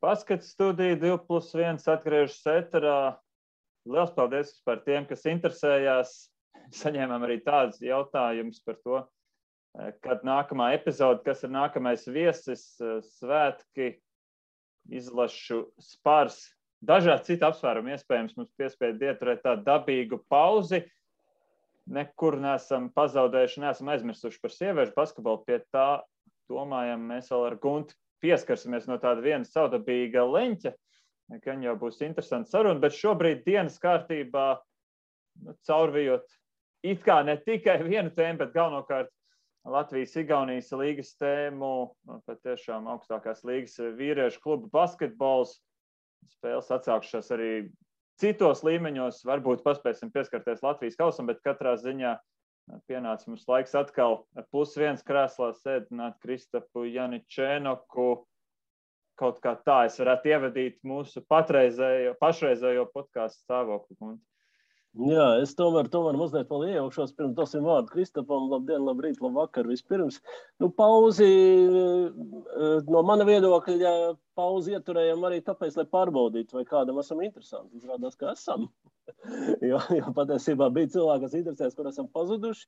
Basket studija 2+1 atgriežas ēterā. Liels paldies par tiem, kas interesējās. Saņēmām arī tādus jautājumus par to, kad nākamā epizode, kas ir nākamais viesis, svētki, izlašu spars. Dažādi citi apsvērumi iespējams mums piespēja ieturēt tādu dabīgu pauzi. Nekur neesam pazaudējuši, neesam aizmirsuši par sieviešu basketbolu. Pie tā domājam, mēs vēl ar Gunti pieskarsimies no tāda viena savdabīga leņķa. Gan jau būs interesanti saruna, bet šobrīd dienas kārtībā caurvijot it kā ne tikai vienu tēmu, bet galvenokārt Latvijas-Igaunijas līgas tēmu, patiešām augstākās līgas vīriešu klubu basketbols. Spēles atsākšās arī citos līmeņos, varbūt paspēsim pieskarties Latvijas kausam, bet katrā ziņā pienāca mums laiks atkal +1 krēslā sēdināt Kristapu Janičēnoku. Kaut kā tā es varētu ievadīt mūsu pašreizējo podcastu stāvokli. Jā, es tomēr mazliet vēl iejaukšos, pirms dosim vārdu Kristapam. Labdien, labrīt, labvakar vispirms. Pauzi, no mana viedokļa, pauzi ieturējam arī tāpēc, lai pārbaudītu, vai kādam esam interesanti. Izrādās, ka esam. jo patiesībā bija cilvēki, kas interesēs, kur esam pazuduši.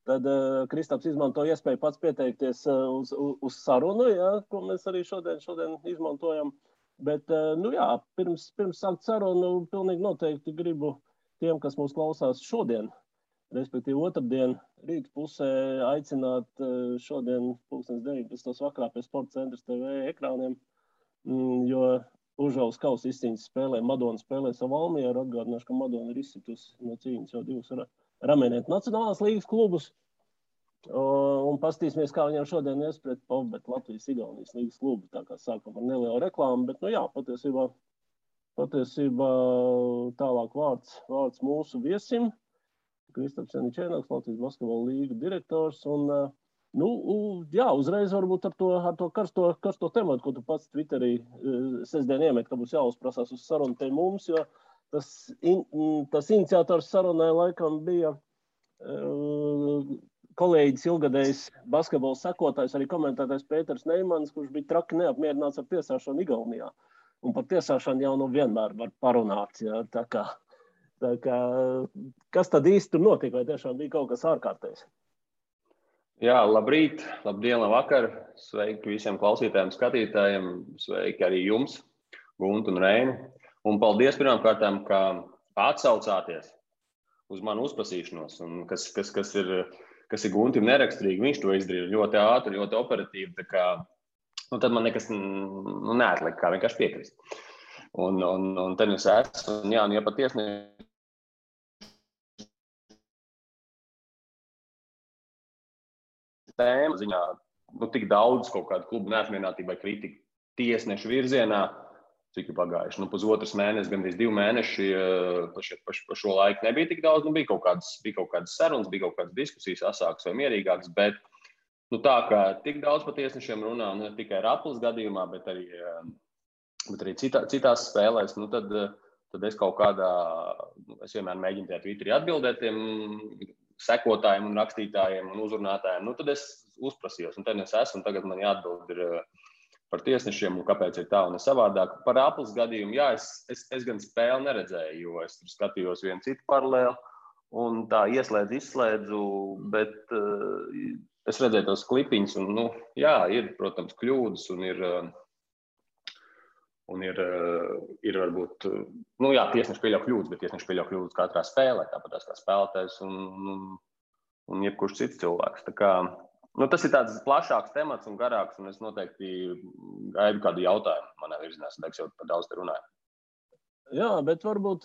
Tad Kristaps izmanto iespēju pats pieteikties uz sarunu, jā, ko mēs arī šodien izmantojam. Bet, pirms sākt sarunu, pilnīgi noteikti gribu tiem, kas mūs klausās šodien, respektīvi otrdien, rīta pusē aicināt šodien 19. vakarā pie Sporta centra TV ekrāniem, jo Užavas kausa izcīņas spēlē, Madona spēlē savu Valmieru, atgādināšu, ka Madona ir izsitusi no cīņas jau 2 Ramēnietu nacionālās līgas klubus, un pastīsimies, kā viņam šodien iespret Pavbet Latvijas-Igaunijas līgas klubu, tā kā sākam ar nelielu reklāmu, bet, Patiesībā tālāk vārds mūsu viesim, Kristaps Janičēnoks, Latvijas basketbola līgu direktors. Un, uzreiz varbūt ar to karsto tematu, ko tu pats Twitterī sestdien iemet, ka būs jāuzprasās uz sarunu te mums, jo tas iniciators sarunai laikam bija kolēģis ilgadējs basketbola sekotājs, arī komentētājs Pēters Neimans, kurš bija traki neapmierināts ar tiesāšanu Igaunijā. Un par tiesāšanu jau vienmēr var parunāt. Jā, tā kā, kas tad īsti tur notika, vai tiešām bija kaut kas ārkārtējs? Jā, labrīt, labdien, labvakar. Sveiki visiem klausītājiem, skatītājiem. Sveiki arī jums, Guntu un Reini. Un paldies pirmkārtām, ka atsaucāties uz manu uzprasīšanos. Un kas ir Guntim neraksturīgi, viņš to izdarīja ļoti ātri, ļoti operatīvi. Tā kā tad man nekas neatlika, kā vienkārši piekrist. Un te es esmu, un ja patiesi tēma ziņā, tik daudz kaut kādu klubu neapmierinātību vai kritiku tiesnešu virzienā, cik ir pagājuši. Pusotras mēnesis, gandrīz 2 mēneši, pa šo laiku nebija tik daudz, bija kaut kādas sarunas, bija kaut kādas diskusijas asākas vai mierīgākas, bet tā kā tik daudz par tiesnešiem runā, ne tikai Raplas gadījumā, bet arī citās spēlēs, tad es kaut kādā, es vienmēr mēģinu tajā Twitterī atbildēt tiem sekotājiem un rakstītājiem un uzrunātājiem, tad es uzprasījos, un te es esmu, un tagad man jāatbild ir par tiesnešiem, un kāpēc ir tā un ne savādāk. Par Raplas gadījumu, jā, es gan spēli neredzēju, jo es tur skatījos vienu citu paralēli, un tā izslēdzu, bet es redzēju tos klipiņus, un, jā, ir, protams, kļūdas, un ir varbūt, jā, tiesneši pieļauj kļūdas, bet tiesneši pieļauj kļūdas katrā spēlē, tāpat kā spēlētājs un jebkurš cits cilvēks. Tā kā, tas ir tāds plašāks temats un garāks, un es noteikti gaidu kādu jautājumu manā virzienā, es jau par daudz te runāju. Jā, bet varbūt,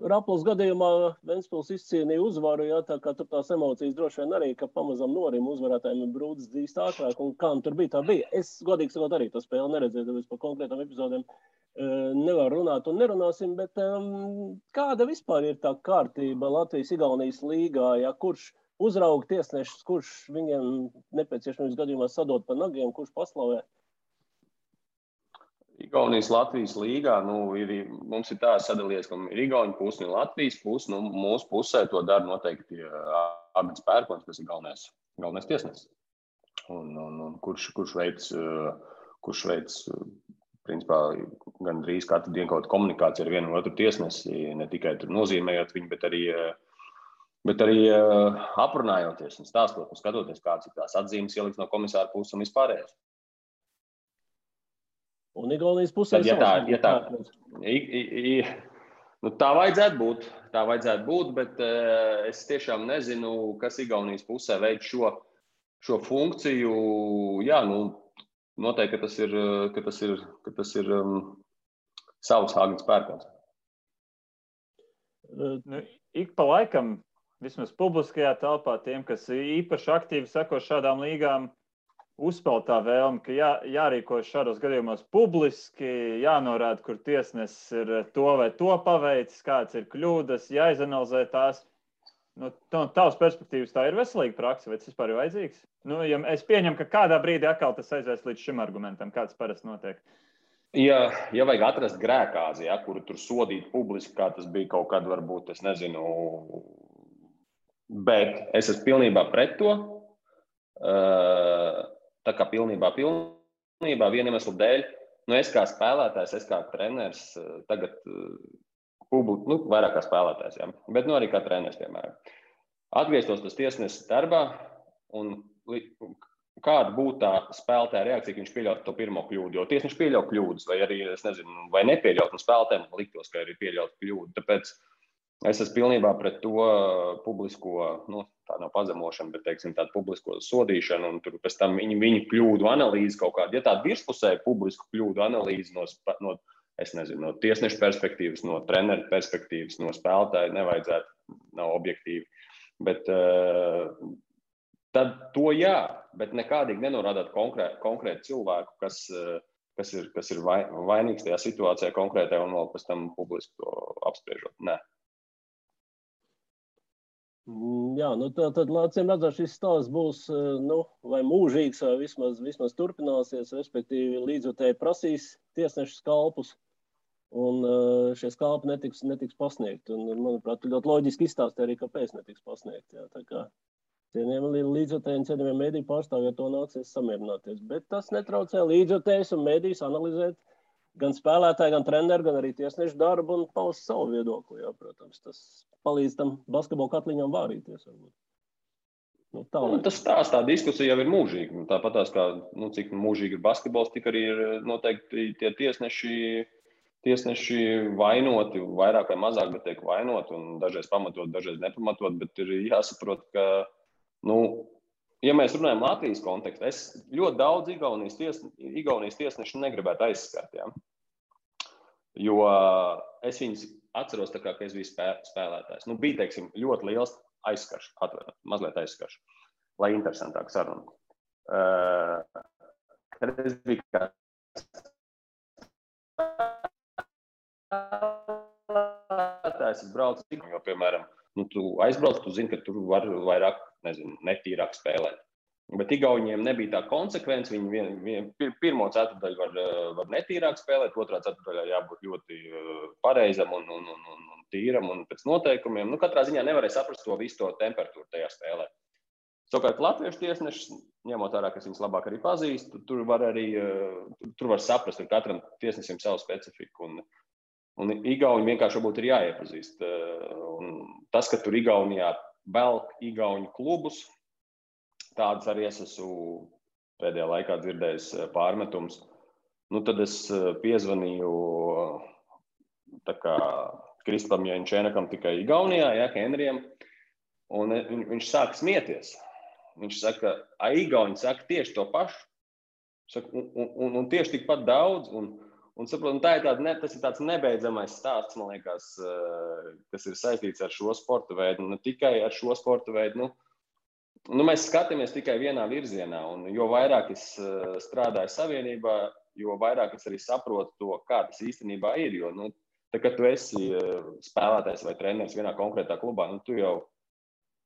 Raplas gadījumā Ventspils izcīnīja uzvaru, jā, tā kā tur tās emocijas droši vien arī, ka pamazam norim uzvarētājiem ir brūdis dzīst ātrāk, un kā tur bija, tā bija. Es, godīgi sakot, arī to spēli neredzēju, tāpēc par konkrētām epizodēm nevaru runāt un nerunāsim, bet kāda vispār ir tā kārtība Latvijas-Igaunijas līgā, ja, kurš uzrauga tiesnešus, kurš viņiem nepieciešamības gadījumā sadod pa nagiem, kurš paslavē? Igaunijas Latvijas līgā, mums ir tā sadalījies, ka ir Igauņu pusi un Latvijas pusi, mūsu pusē to dara noteikti Arnolds Pērkons, kas ir galvenais tiesnesis. Un kurš veic principā gan drīz katru dienu kaut komunikācija ar vienu otru tiesnesi, ne tikai tur nozīmējot viņu, bet arī aprunājoties un stāstot un skatoties, kāds ir tās atzīmes ieliks no komisāra puses un vispārējais. Un Igaunijas pusē tā vajadzētu būt, bet es tiešām nezinu, kas Igaunijas pusē veids šo funkciju. Jā, noteikti, ka tas ir savs Hāgas pērkons. Ik pa laikam, vismaz publiskajā telpā, tiem, kas īpaši aktīvi seko šādām līgām, uzspēlēt tā vēlme, ka jārīkojas šādos gadījumos publiski, jānorāda, kur tiesnesis ir to vai to paveicis, kāds ir kļūdas, jāizanalizē tās. No tavas perspektīvas tā ir veselīga praksa, vai tas vispār ir vajadzīgs? Ja es pieņemu, ka kādā brīdī atkal tas aizies līdz šim argumentam, kāds parasti notiek. Ja vajag atrast grēkāzi, kuru tur sodīt publiski, kā tas bija kaut kad, varbūt, es nezinu, bet es esmu pilnībā pret to. Tā kā pilnībā viena iemesla dēļ, es kā spēlētājs, es kā treneris, tagad vairāk kā spēlētājs, jā, bet arī kā treneris, piemēram. Atgrieztos tas tiesnesis darbā un kāda būtu tā spēlētāja reakcija, ka viņš pieļaut to pirmo kļūdu, jo tiesneši pieļaut kļūdas, vai arī, es nezinu, vai nepieļaut, un spēlētājiem liktos, ka arī pieļaut kļūdu. Tāpēc es esmu pilnībā pret to publisko, tā nav pazemošana, bet, teiksim, tādu publisko sodīšanu, un tur pēc tam viņu kļūdu analīzi kaut kādu, ja tādu virspusēju publisku kļūdu analīzi no tiesnešu perspektīvas, no treneru perspektīvas, no spēlētāju nevajadzētu, nav objektīvi, bet tad to jā, bet nekādīgi nenorādāt konkrētu cilvēku, kas ir vainīgs tajā situācijā konkrētajā un vēl pēc tam publiski to apspriežot. Nē. Jā, tad acīm redzot, šis stāsts būs vai mūžīgs, vai vismaz turpināsies, respektīvi līdzjutēji prasīs tiesnešu skalpus, un šie skalpi netiks pasniegti. Un, manuprāt, ļoti loģiski izstāstīt arī, kāpēc netiks pasniegti. Jā, tā kā cienījamiem līdzjutējiem, cienījamiem mediju pārstāvjiem to nāksies samierināties. Bet tas netraucē līdzjutējus un medijus analizēt gan spēlētāji, gan treneri, gan arī tiesnešu darbu un paust savu viedokli. Jā, protams, tas palīdz tam basketbola katliņam vārīties. Tā diskusija jau ir mūžīga. Tāpat tās, kā, cik mūžīgi ir basketbols, tik arī ir noteikti tie tiesneši vainoti, vairāk vai mazāk, bet tiek vainoti, un dažreiz pamatot, dažreiz nepamatot, bet ir jāsaprot, ka, ja mēs runājam Latvijas kontekstā, es ļoti daudz Igaunijas tiesnešu negribētu aizskart, ja? Jo es viņus atceros tā kā, ka es biju spēlētājs. Bija, teiksim, ļoti liels aizskarš, mazliet aizskarš, lai interesantāk saruna. Kad es biju kā spēlētājs, es braucu, jo, piemēram, tu aizbrauc, tu zini, ka tur var vairāk, netīrāk spēlēt. Bet Igauniem nebija tā konsekvence, viņi pirmo ceturdaļu var netīrāk spēlēt, otrā ceturdaļā jābūt ļoti pareizam un tīram un pēc noteikumiem. Katrā ziņā nevarēja saprast to visu to temperatūru tajā spēlē. Savukārt latviešu tiesnešus, ņemot vērā, kas viņus labāk arī pazīst, tur var saprast, ka katram tiesnesim savu specifiku. Un Igauni vienkārši varbūt ir jāiepazīst. Un tas, ka tur Igaunijā velk Igauņu klubus, tādas arī es esmu pēdējā laikā dzirdējis pārmetums. Tad es piezvanīju Kristapam Jančēnakam tikai Igaunijā, Henrijam, un viņš sāka smieties. Viņš saka, Igauni saka tieši to pašu, un tieši tikpat daudz, un saprot, tas ir tāds nebeidzamais stāsts, man liekas, kas ir saistīts ar šo sporta veidu, un ne tikai ar šo sporta veidu. Mēs skatāmies tikai vienā virzienā, un jo vairāk es strādāju savienībā, jo vairāk es arī saprotu to, kā tas īstenībā ir. Jo, kad tu esi spēlētājs vai treneris vienā konkrētā klubā, tu jau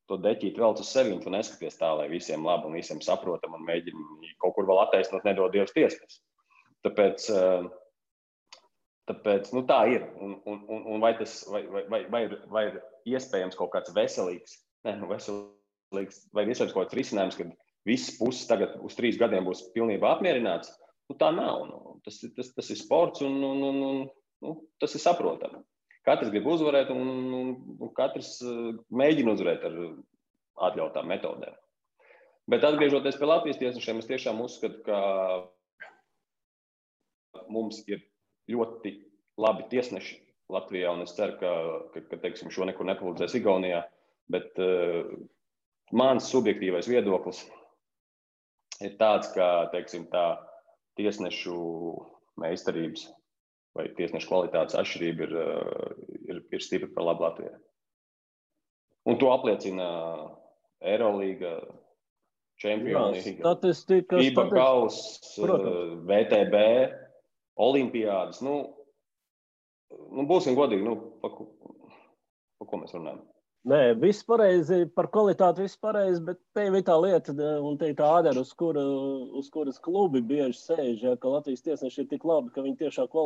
to deķīt velc uz sevi, un tu neskaties tā, lai visiem labi un visiem saprotam, un mēģini kaut kur vēl attaisnot, nedod Dievs tiesnes. Tāpēc tā ir. Un vai ir iespējams kaut kāds veselīgs, vai iespējams kaut kāds risinājums, kad visas puses tagad uz 3 gadiem būs pilnībā apmierināts? tā nav. Tas ir sports un tas ir saprotami. Katrs grib uzvarēt un katrs mēģina uzvarēt ar atļautām metodēm. Bet atgriežoties pie Latvijas tiesnešiem, es tiešām uzskatu, ka mums ir ļoti labi tiesneši Latvijā, un es ceru, ka teiksim, šo nekur nepalīdzēs Igaunijā, bet mans subjektīvais viedoklis ir tāds, ka teiksim, tā tiesnešu meistarības vai tiesnešu kvalitātes atšķirība ir stipri par labu Latvijai. Un to apliecina Eirolīga, Čempionu līga, FIBA kauss, VTB, Olimpiādas. Būsim godīgi, par ko mēs runājam? Nē, viss pareizi, par kvalitāti viss pareizi, bet te ir tā lieta, un te ir tā ādara, uz kuras klubi bieži sēž, ja, ka Latvijas tiesneši ir tik labi, ka viņi tiešām ka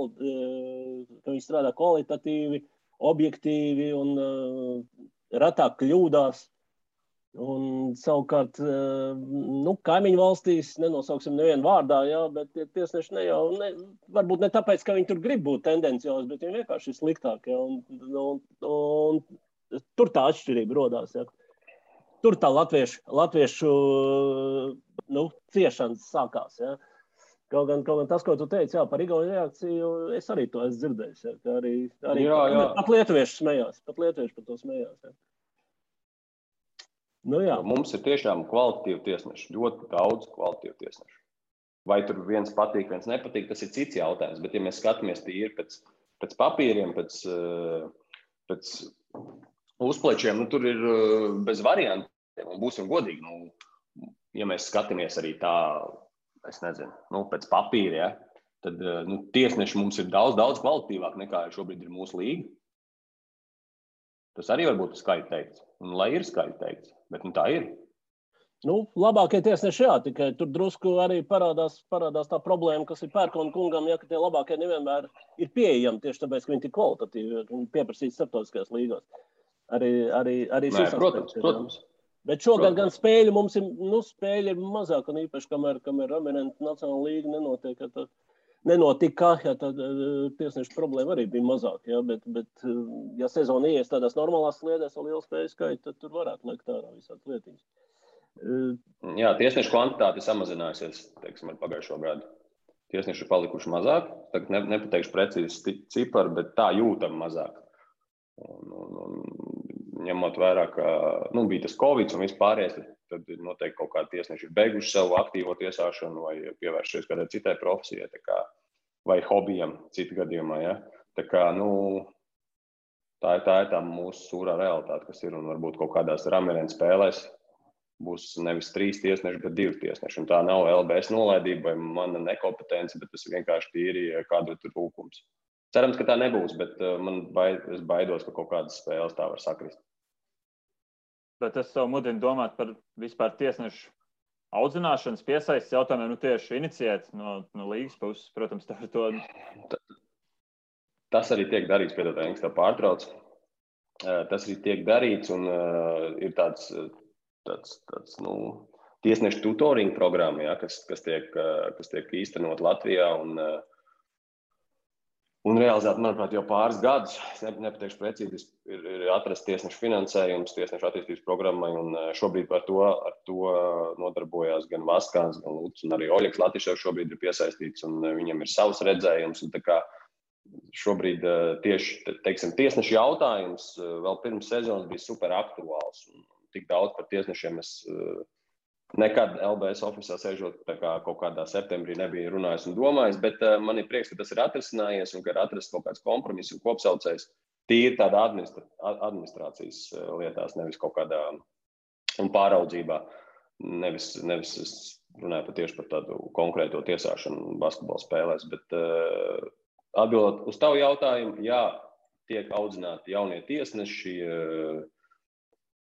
viņi strādā kvalitatīvi, objektīvi un retāk kļūdās. Un savukārt, kaimiņu valstīs, nenosauksim nevienu vārdā, jā, bet tiesneši varbūt ne tāpēc, ka viņi tur grib būt tendenciozi, bet viņi vienkārši ir sliktāki. Un tur tā atšķirība rodās. Jā. Tur tā latviešu ciešanas sākās. Jā. Kaut gan tas, ko tu teici, jā, par Igaunu reakciju, es arī to esmu dzirdējis. Jā, ka arī jā. Pat lietuvieši smējās, pat lietuvieši par to smējās. Jā. Mums ir tiešām kvalitatīvi tiesneši, ļoti daudz kvalitatīvu tiesnešu. Vai tur viens patīk, viens nepatīk, tas ir cits jautājums. Bet, ja mēs skatāmies tīri pēc papīriem, pēc uzplečiem, tur ir bez variantiem. Un būsim godīgi, ja mēs skatāmies arī tā, es nezinu, pēc papīra, ja, tad tiesneši mums ir daudz kvalitatīvāk nekā šobrīd ir mūsu līga. Tas arī varbūt skaļi teikts. Un lai ir skaļi teikts, bet tā ir. Labākie tiesneši, jā, tikai tur drusku arī parādās tā problēma, kas ir Pērkona kungam, ja, ka tie labākie nevienmēr ir pieejami tieši tāpēc, ka viņi ir kvalitatīvi un pieprasīti starptautiskajās līgās. Arī šis aspekts. Protams. Bet šogad gan spēļu mums ir, spēļi ir mazāk, un īpaši, kamēr Eminenta Nacionāla līga nenotika, ja tad tiesnešu problēma arī bija mazāk, ja, bet ja sezona ies tādās normālās sliedēs ar lielu spēju skaitu, tad tur varētu liekt ārā visādas lietiņas. Jā, tiesnešu kvantitāte ir samazinājusies, teiksim, ar pagājušo gadu. Tiesneši ir palikuši mazāk, tagad nepateikšu precīzi ciparu, bet tā jūtam mazāk. Un ņemot vērā, ka bija tas Covid un vispārējais, tad noteikti kaut kādi tiesneši ir beiguši savu aktīvo tiesāšanu vai pievēršies kādai citai profesijai, vai hobijam citu gadījumā. Ja? Tā ir tā mūsu sūrā realitāte, kas ir, un varbūt kaut kādās Ramirenta spēlēs būs nevis 3 tiesneši, bet 2 tiesneši. Un tā nav LBS nolaidība vai mana nekompetence, bet tas vienkārši tīri kādu tur trūkums. Cerams, ka tā nebūs, bet es baidos, ka kaut kādas spēles tā var sakrist. Bet es savu mudinu domāt par vispār tiesnešu audzināšanas piesaistes jautājumiem, tieši iniciēt no līgas puses, protams, tā ir to. Tas arī tiek darīts, piedod, Engs, tā pārtrauc. Tas arī tiek darīts un ir tāds tiesnešu tutoring programma, ja, kas tiek īstenot Latvijā un realizēt, manuprāt, jau pāris gadus, es nepateikšu precīzi, ir atrasts tiesnešu finansējums, tiesnešu attīstības programmai, un šobrīd ar to nodarbojās gan Vaskāns, gan Luts, un arī Oļeks Latiševs šobrīd ir piesaistīts, un viņam ir savs redzējums, un tā kā šobrīd tieši, teiksim, tiesnešu jautājums vēl pirms sezonas bija super aktuāls, un tik daudz par tiesnešiem es nekad LBS ofisā sēžot kaut kādā septembrī nebija runājis un domājis, bet man ir prieks, ka tas ir atrisinājies un ka ir atrasts kaut kāds kompromiss un kopsaucējs tīri tādā administrācijas lietās, nevis kaut kādā un pāraudzībā. Nevis es runāju tieši par tādu konkrēto tiesāšanu basketbola spēlēs, bet atbildot uz tavu jautājumu, jā, tiek audzināti jaunie tiesneši,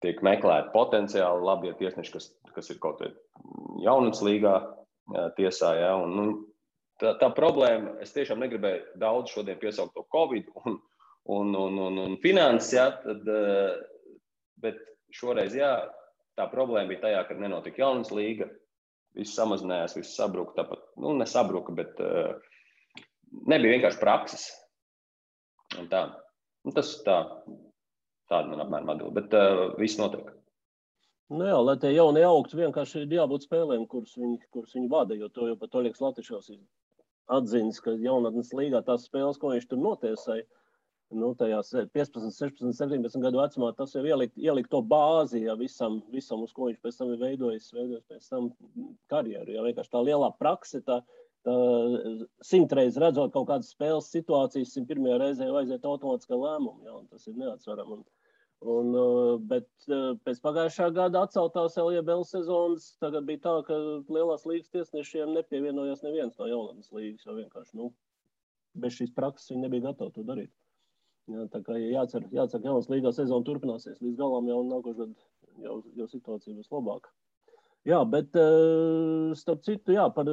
tiek meklēti potenciāli labie tiesneši, kas ir kaut kādā jaunatnes līgā tiesā. Ja? Tā problēma, es tiešām negribēju daudz šodien piesaukt to Covid un finanses, ja? Bet šoreiz, jā, tā problēma bija tajā, kad nenotika jaunatnes līga, viss samazinājās, viss sabruka. Tāpat, nesabruka, bet nebija vienkārši prakses. Un tā. Tas tāda man apmēram atbild, bet viss notiek. Jā, lai tie jaunie augtu, vienkārši ir jābūt spēlēm, kuras viņi vada, jo to jau pat Oļegs Latišovs atzīst, ka jaunatnes līgā tās spēles, ko viņš tur notiesāja, tajās 15, 16, 17 gadu vecumā, tas jau ielikt to bāzi, ja, visam, uz ko viņš pēc tam ir veidojis pēc tam karjeru. Ja, vienkārši tā lielā prakse, tā 100 reizes redzot kaut kādas spēles situācijas, 101. reizē aiziet automātiskā lēmuma, ja, un tas ir neatsverami. Bet pēc pagājušā gada atceltās LJBL sezonas, tagad bija tā, ka lielās līgas tiesnešiem nepievienojās neviens no jaunatnes līgas, jo vienkārši, bez šīs prakses viņi nebija gatavi to darīt. Jā, tā kā jācer, ka jaunas līgā sezona turpināsies līdz galam, jau nākošais gadu jau situācija būs labāka. Jā, bet starp citu, jā, par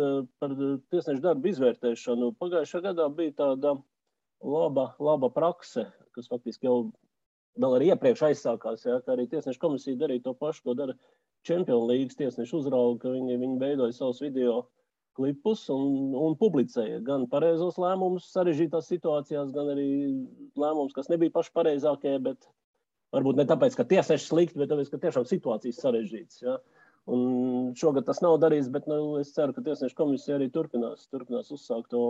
tiesnešu darbu izvērtēšanu. Pagājušā gadā bija tāda laba prakse, kas faktiski jau vēl arī iepriekš aizsākās, jā, ka arī tiesnešu komisija darīja to pašu, ko dara Čempionu līgas tiesnešu uzrauga, ka viņi veidoja savus video klipus un publicēja gan pareizos lēmumus sarežģītās situācijās, gan arī lēmumus, kas nebija paši pareizākie, bet varbūt ne tāpēc, ka tiesneši slikti, bet tāpēc, ka tiešām situācijas sarežģītas. Ja? Un šogad tas nav darīts, bet es ceru, ka tiesnešu komisija arī turpinās uzsākt to.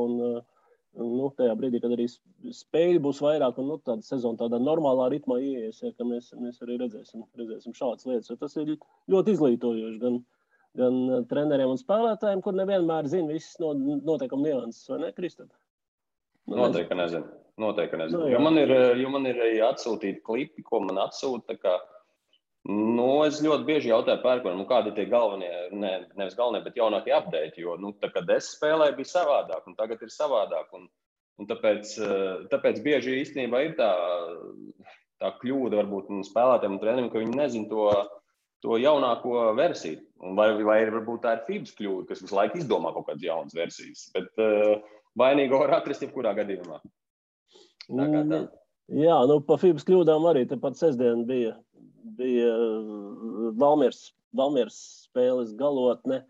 Un tajā brīdī, kad arī spēļi būs vairāk un tāda sezona tādā normālā ritmā ieies, ja, ka mēs arī redzēsim šādas lietas. Jo tas ir ļoti izglītojoši gan treneriem un spēlētājiem, kur nevienmēr zina visas noteikuma nianses, vai ne, Kristap? Noteikti nezinu. Jo man ir atsūtīti klipi, ko man atsūta. Es ļoti bieži jautāju pērkonam, kādi ir tie galvenie, nevis galvenie, bet jaunākie update, jo, kad es spēlēju, bija savādāk, un tagad ir savādāk, un tāpēc bieži īstenībā ir tā kļūda varbūt spēlētājiem un treneriem, ka viņi nezin to jaunāko versiju, vai varbūt tā ir FIBA's kļūda, kas visu laiku izdomā kaut kādas jaunas versijas, bet vainīgo var atrast jebkurā gadījumā. Jā, pa FIBA's kļūdām arī tepat sestdien bija Valmieras spēles galotne.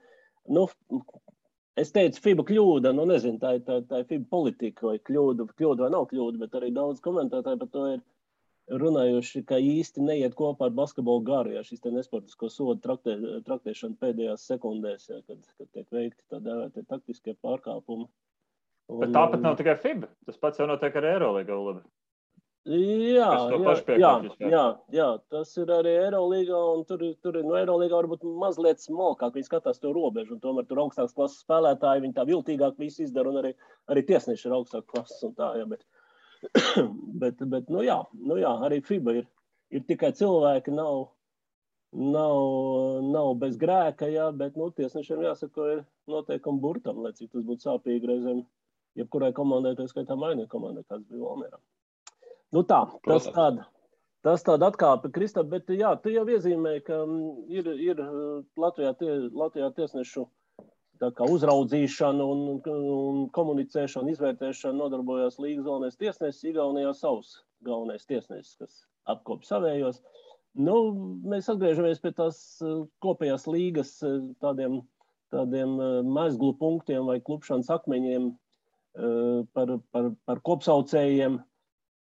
Es teicu, FIBA kļūda, nezinu, tā ir FIBA politika, vai kļūda vai nav kļūda, bet arī daudz komentētāji par to ir runājuši, ka īsti neiet kopā ar basketbolu garu, ja šis te nesportisko sodu traktēšana pēdējās sekundēs, ja, kad tiek veikti tā dēvētie taktiskie pārkāpumi. Bet tāpat nav tikai FIBA, tas pats jau notiek ar Eirolīgā, labi. Jā, tas ir arī Eirolīgā, un tur no Eirolīgā varbūt mazliet smalkāk, viņi skatās to robežu, un tomēr tur augstākas klases spēlētāji, viņi tā viltīgāk visu izdara, un arī tiesneši ir augstākas klases un tā, jā, bet arī FIBA ir tikai cilvēki, nav bez grēka, jā, bet, tiesnešiem jāsaka, ir noteikumi burtam, lai cik tas būtu sāpīgi reizēm, jebkurai komandai, tā skaitā mainīja komandai, kāds bija Valmierā. Tas tāda atkāpe, Kristap, bet jā, tu jau iezīmēji, ka ir Latvijā tiesnešu tā kā uzraudzīšana un komunicēšana, izvērtēšana nodarbojās līgas galvenais tiesnesis, Igaunijā savs galvenais tiesnesis, kas apkop savējos. Mēs atgriežamies pie tās kopējās līgas tādiem mezglu punktiem vai klupšanas akmeņiem par kopsaucējiem,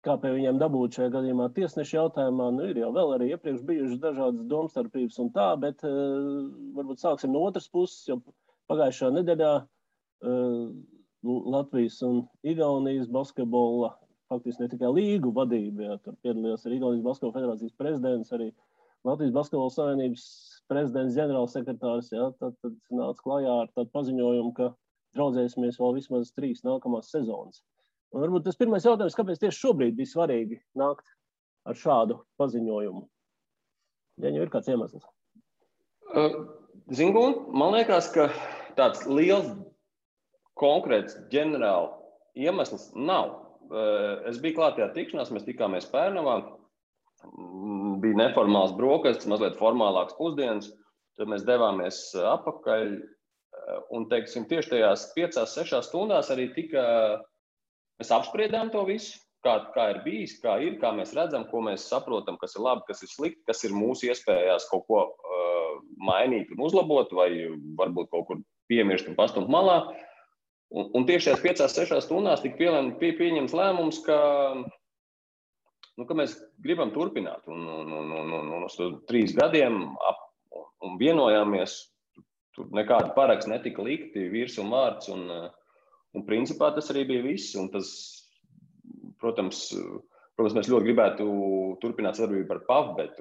kā pie viņiem dabūt šajā gadījumā tiesnešu jautājumā. Ir jau vēl arī iepriekš bijušas dažādas domstarpības un tā, bet varbūt sāksim no otras puses, jo pagājušā nedēļā Latvijas un Igaunijas basketbola, faktiski ne tikai līgu vadība, jā, tur piedalījās arī Igaunijas basketbola federācijas prezidents, arī Latvijas basketbola savienības prezidents, ģenerālsekretārs, jā, tad nāca klajā ar tādu paziņojumu, ka draudzēsimies vēl vismaz 3 nākamās sezonas. Un varbūt tas pirmais jautājums, kāpēc tieši šobrīd bija svarīgi nākt ar šādu paziņojumu? Ja jau ir kāds iemesls? Man liekas, ka tāds liels konkrēts ģenerāla iemesls nav. Es biju klāt tajā tikšanās, mēs tikāmies Pērnavā, bija neformāls brokastis, mazliet formālāks pusdienas, tad mēs devāmies apakaļ un, teiksim, tieši tajās 5-6 stundās arī mēs apspriedām to visu, kā ir bijis, kā mēs redzam, ko mēs saprotam, kas ir labi, kas ir slikti, kas ir mūsu iespējās kaut ko mainīt un uzlabot, vai varbūt kaut kur piemirst un pastumt malā. Un tieši tajās 5-6 stundās tika pieņemts lēmums, ka mēs gribam turpināt. Un uz 3 gadiem un vienojāmies, tur nekāda paraksts netika likti, virs un vārds, un principā tas arī bija viss. Un tas, protams, mēs ļoti gribētu turpināt sadarbību ar Pavbet,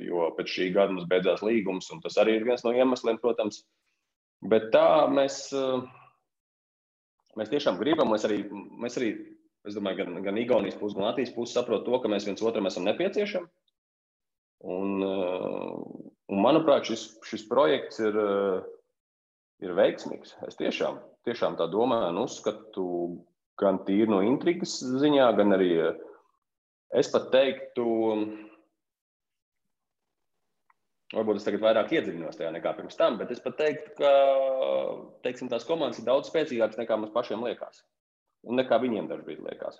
jo pēc šī gada mums beidzās līgums, un tas arī ir viens no iemesliem, protams. Bet tā mēs tiešām gribam, mēs arī, es domāju, gan Igaunijas puses, gan Latvijas puses saprot to, ka mēs viens otram esam nepieciešami. Un manuprāt, šis projekts ir veiksmīgs. Es tiešām tā domāju un uzskatu gan tīri no intrigas ziņā, gan arī es pat teiktu, varbūt es tagad vairāk iedziļinos tajā nekā pirms tam, bet es pat teiktu, ka teiksim, tās komandas ir daudz spēcīgākas nekā mums pašiem liekas. Un nekā viņiem dažbrīd liekas.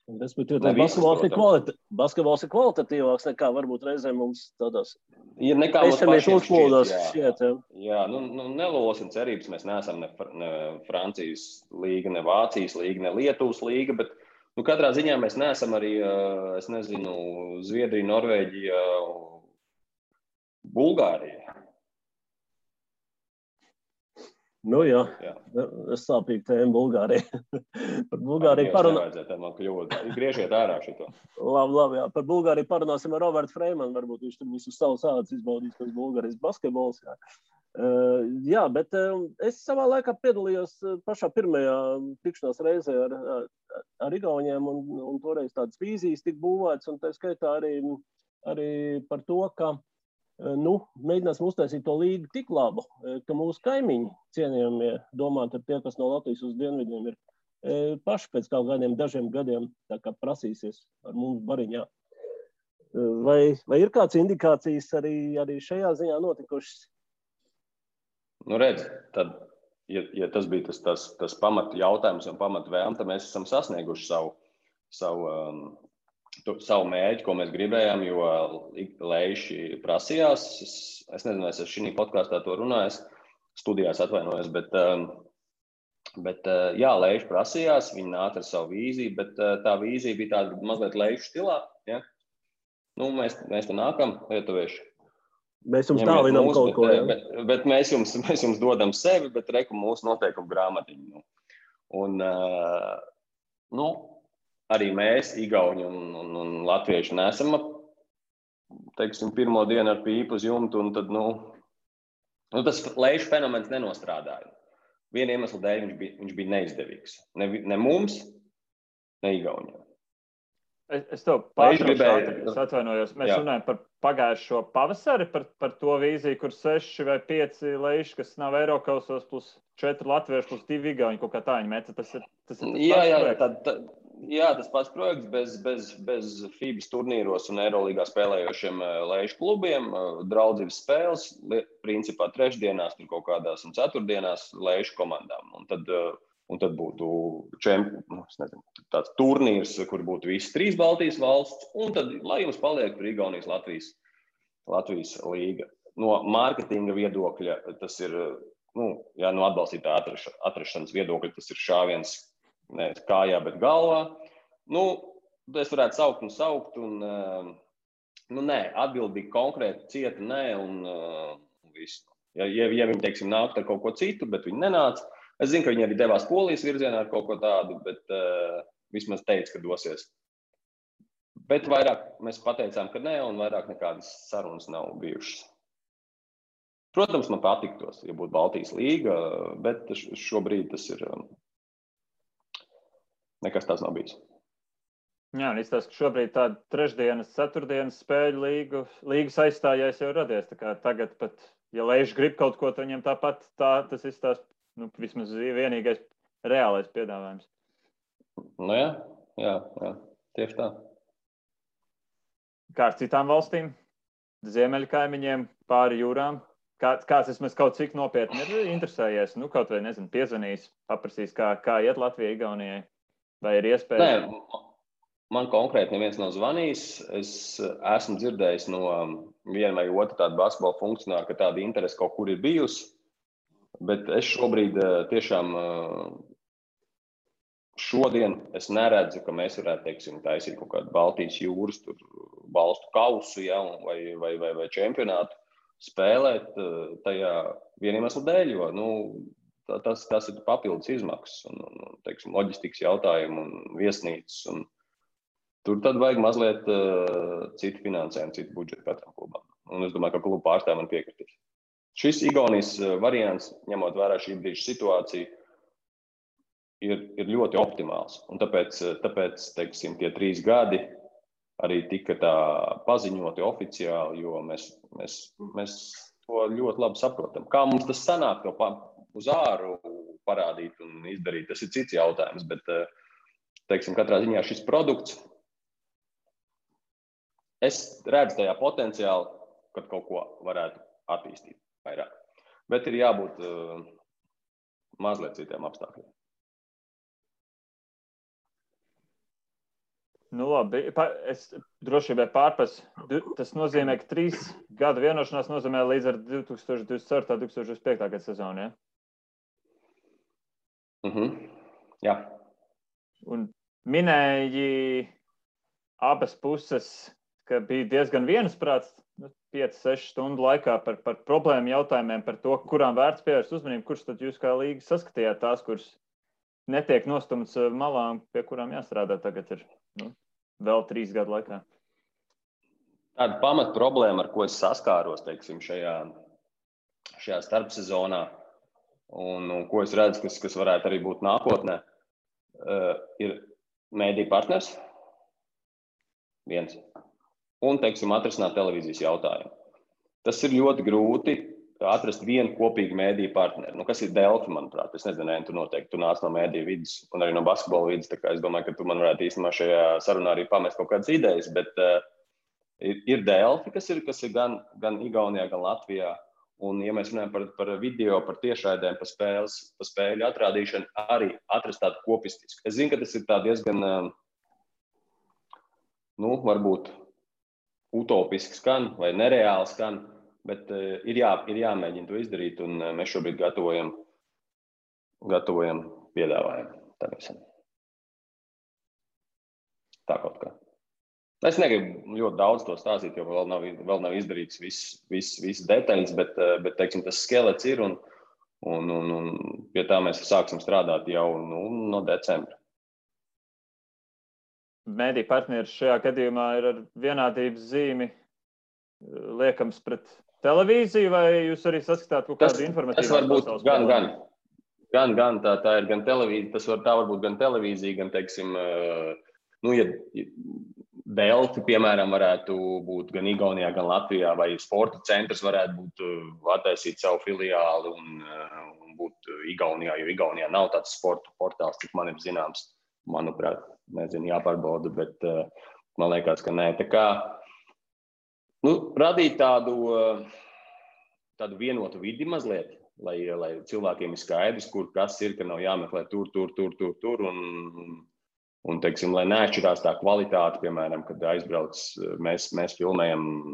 Respektīvi, basketbols ir kvalitatīvāks nekā varbūt reizēm mums tādās nekā mums pašiem šķiet. Jā, nelolosim cerības, mēs neesam ne Francijas līga, ne Vācijas līga, ne Lietuvas līga, bet katrā ziņā mēs neesam arī, es nezinu, Zviedrija, Norvēģija, Bulgārija. Nu jā. Es sāpīgi tēmu Bulgāriju. Par Bulgāriju Griežiet ārā šito. Labi, jā. Par Bulgāriju parunāsim ar Robertu Freimanu. Varbūt viņš tur visu savus ādas izbaudīs, kas Bulgārijas basketbols. Jā, bet es savā laikā piedalījos pašā pirmajā tikšanās reizē ar Igauniem, un toreiz tādas vīzijas tika būvētas, un tā skaitā arī par to, ka mēģināsim uztaisīt to līgu tik labu, ka mūsu kaimiņi cienījamie, domājot ar tie, kas no Latvijas uz dienvidiem ir paši pēc kaut kādiem dažiem gadiem tā kā prasīsies ar mums bariņā. Vai ir kāds indikācijas arī šajā ziņā notikušas? Redz, tad, ja tas bija tas pamat jautājums un pamat vēlme, tad mēs esam sasnieguši savu mērķi, ko mēs gribējām, jo Leiši prasījās. Es nezinu, es šī podkāstā to runāju, studijās atvainojos, bet jā, Leiši prasījās, viņi nāca ar savu vīziju, bet tā vīzija bija tāda mazliet Leišu stilā. Ja? Mēs te nākam, lietuvieši. Mēs jums tālinām kaut ko. Bet mēs jums dodam sevi, bet reku mūsu noteikumu grāmatiņu. Un, arī mēs, Igauni un latvieši, nesam, teiksim, pirmo dienu ar pīpu uz jumtu, un tad, tas Leišu fenomens nenostrādāja. Viena iemesla dēļ viņš bija neizdevīgs. Ne mums, ne Igauniem. Es tev pārtraucu, es atvainojos. Mēs runājam par pagājušo pavasari, par to vīziju, kur 6 vai 5 leiši, kas nav Eirokausos, plus 4 latvieši, plus 2 Igauni, kaut kā tā viņi meta. Tas ir tas pats projekts bez FIBAS turnīros un Eirolīgā spēlējošiem leišu klubiem, draudzības spēles, principā trešdienās, tur kaut kādās un ceturtdienās leišu komandām. Un tad būtu tāds turnīrs, kur būtu visas 3 Baltijas valsts, un tad, lai jums paliek tur Igaunijas Latvijas līga. No mārketinga viedokļa tas ir, no atbalstītā atrašanas viedokļa tas ir šāviens ne kājā, bet galvā. Es varētu saukt, un nē, atbildi bija konkrēti, cieta nē, un viss. Ja viņi, teiksim, nākt ar kaut ko citu, bet viņi nenāca. Es zinu, ka viņi arī devās Polijas virzienā ar kaut ko tādu, bet vismaz teica, ka dosies. Bet vairāk mēs pateicām, ka nē, un vairāk nekādas sarunas nav bijušas. Protams, man patiktos, ja būtu Baltijas līga, bet šobrīd tas ir nekas tāds nav bijis. Jā, un izstāst, ka šobrīd tāda trešdienas, ceturtdienas spēļu līgas aizstājais jau radies. Tā kā tagad pat, ja Leiši grib kaut ko, tad viņam tāpat tas izstāst. Vismaz vienīgais reālais piedāvājums. Jā, tieši tā. Kā ar citām valstīm, ziemeļu kaimiņiem, pāri jūrām, kāds vismaz kaut cik nopietni ir interesējies, kaut vai, nezinu, piezvanījis, paprasījis, kā iet Latvijai, Igaunijai, vai ir iespēja? Man konkrēti neviens nav zvanījis. Es esmu dzirdējis no viena vai otra tāda basketbola funkcionāra, ka tāda interese kaut kur ir bijusi. Bet es šobrīd tiešām šodien es neredzu, ka mēs varētu, teiksim, taisīt kaut kādu Baltijas jūras valstu kausu, ja, vai čempionātu spēlēt tajā vieniem iemeslu dēļ, jo tas ir papildus izmaksas un teiksim, loģistikas jautājumu un viesnīcas. Un tur tad vajag mazliet citu finansējumu, citu budžetu katram klubam. Un es domāju, ka klubu pārstāvji man piekritīs. Šis Igaunijas variants, ņemot vērā šī brīža situāciju, ir ļoti optimāls. Un tāpēc teiksim, tie 3 gadi arī tika tā paziņoti oficiāli, jo mēs to ļoti labi saprotam. Kā mums tas sanāk to uz āru parādīt un izdarīt, tas ir cits jautājums, bet teiksim, katrā ziņā šis produkts, es redzu tajā potenciāli, kad kaut ko varētu attīstīt vairāk. Bet ir jābūt mazliet citiem apstākļiem. Nu, labi, es droši vien pārpas. Tas nozīmē, ka 3 gadu vienošanās nozīmē līdz ar 2024. 2025. gada sezonu, ja? Jā. Un minēji abas puses, ka bija diezgan viensprāts 5-6 stundu laikā par problēmu jautājumiem, par to, kurām vērts pievērst uzmanību, kurš tad jūs kā līga saskatījāt tās, kuras netiek nostumts malā, pie kurām jāstrādā tagad ir vēl 3 gadu laikā. Tāda pamat problēma, ar ko es saskāros, teiksim, šajā starpsezonā, un ko es redzu, kas varētu arī būt nākotnē, ir mēdīju partners, viens, un, teiksim, atrisināt televīzijas jautājumu. Tas ir ļoti grūti atrast vienu kopīgu mēdīju partneri. Kas ir Delfi, manuprāt? Es nezinu, tu nāc no mēdīju vidas un arī no basketbola vidas, tā kā es domāju, ka tu man varētu īstenībā šajā sarunā arī pamest kaut kādas idejas, bet ir Delfi, kas ir gan Igaunijā, gan Latvijā. Un, ja mēs runājam par video, par tiešraidēm, par spēļu atrādīšanu, arī atrast tādu kopistisku. Es zinu, ka tas ir tā diezgan, varbūt utopiski skan vai nereāli skan, bet ir jāmēģina to izdarīt, un mēs šobrīd gatavojam piedāvājumu. Tā kaut kā. Es negribu ļoti daudz to stāstīt, jo vēl nav izdarīts viss detaļas, bet teiksim, tas skelets ir, un pie tā mēs sāksim strādāt jau no decembra. Mēdīju partneris šajā gadījumā ir ar vienādības zīmi liekams pret televīziju, vai jūs arī saskatāt kaut kādu informatīvu? Tas var būt gan tā ir gan televīzija, tā var būt gan televīzija, gan, teiksim, ja Delfi, piemēram, varētu būt gan Igaunijā, gan Latvijā, vai sporta centrs varētu būt attaisīt savu filiāli un būt Igaunijā, jo Igaunijā nav tāds sporta portāls, cik man ir zināms, manuprāt, nezinu, jāpārbauda, bet man liekas, ka nē. Tā kā radīt tādu vienotu vidi mazliet, lai cilvēkiem ir skaidrs, kur kas ir, ka nav jāmeklē tur, un teiksim, lai neatšķirās tā kvalitāte, piemēram, kad aizbrauc, mēs filmējam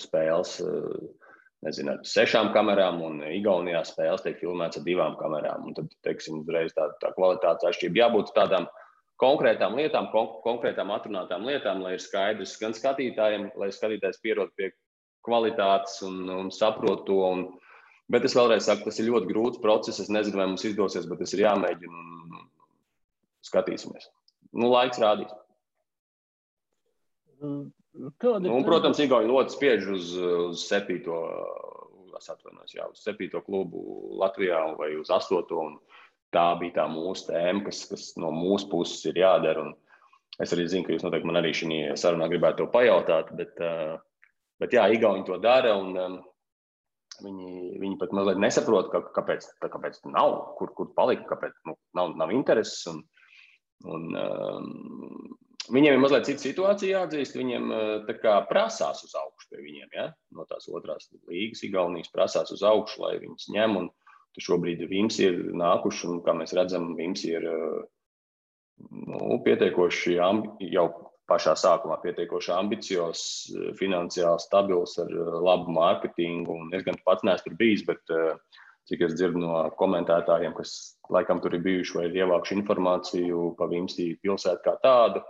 spēles, nezinu, ar 6 kamerām, un Igaunijā spēles tiek filmēts ar 2 kamerām, un tad, teiksim, uzreiz tā kvalitātes atšķirība. Jābūt tādām konkrētām lietām, konkrētām atrunātām lietām, lai ir skaidrs gan skatītājiem, lai skatītājs pierod pie kvalitātes un saprot to. Bet es vēlreiz saku, tas ir ļoti grūts process. Es nezinu, vai mums izdosies, bet tas ir jāmēģina un skatīsimies. Laiks rādīs. Protams, Igauni ļoti spiež uz 7. uz 7. klubu Latvijā vai uz 8. Un tā bija tā mūsu tēma, kas no mūsu puses ir jādara. Un es arī zinu, ka jūs noteikti man arī šī sarunā gribētu to pajautāt, bet jā, Igauni to dara, un viņi pat mazliet nesaprot, kāpēc nav, kur palika, kāpēc nav intereses. Un viņiem ir mazliet cita situācija jāatzīst, viņiem tā kā prasās uz augšu pie viņiem, ja? No tās otrās līgas Igaunijas prasās uz augšu, lai viņus ņem, un šobrīd Vimsi ir nākuši, un kā mēs redzam, Vimsi ir pietiekoši jau pašā sākumā pietiekoši ambiciozs, finansiāli stabils ar labu mārketingu. Un es gan pats neesmu tur bijis, bet cik es dzirdu no komentētājiem, kas laikam tur ir bijuši vai ir ievākuši informāciju pa Vimsī pilsētu kā tādu,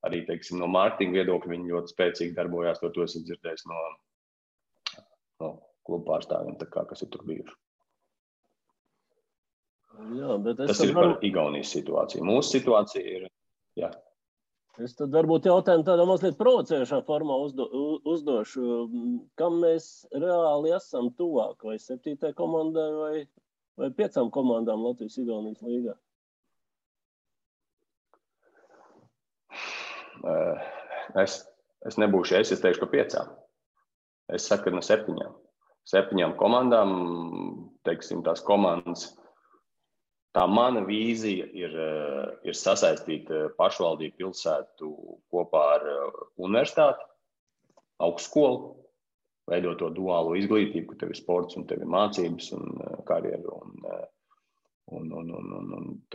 arī, teiksim, no mārketinga viedokļa viņi ļoti spēcīgi darbojās, to esmu dzirdējis no klubu pārstāvjiem, tā kā, kas ir tur bijuši. Jā, bet tas ir par Igaunijas situāciju. Mūsu situācija ir, jā. Es tad varbūt jautājumu tādā mazliet provocējušā formā uzdošu. Kam mēs reāli esam tuvāk? Vai 7. komandai vai 5 komandām Latvijas-Igaunijas līgā? Es nebūšu es teikšu, ka 5. Es saku, ka no 7. 7 komandām, teiksim, tās komandas. Tā mana vīzija ir sasaistīt pašvaldību pilsētu kopā ar universitāti, augstskolu, veidot to duālo izglītību, ka tev ir sports un tev ir mācības un karjeru. Un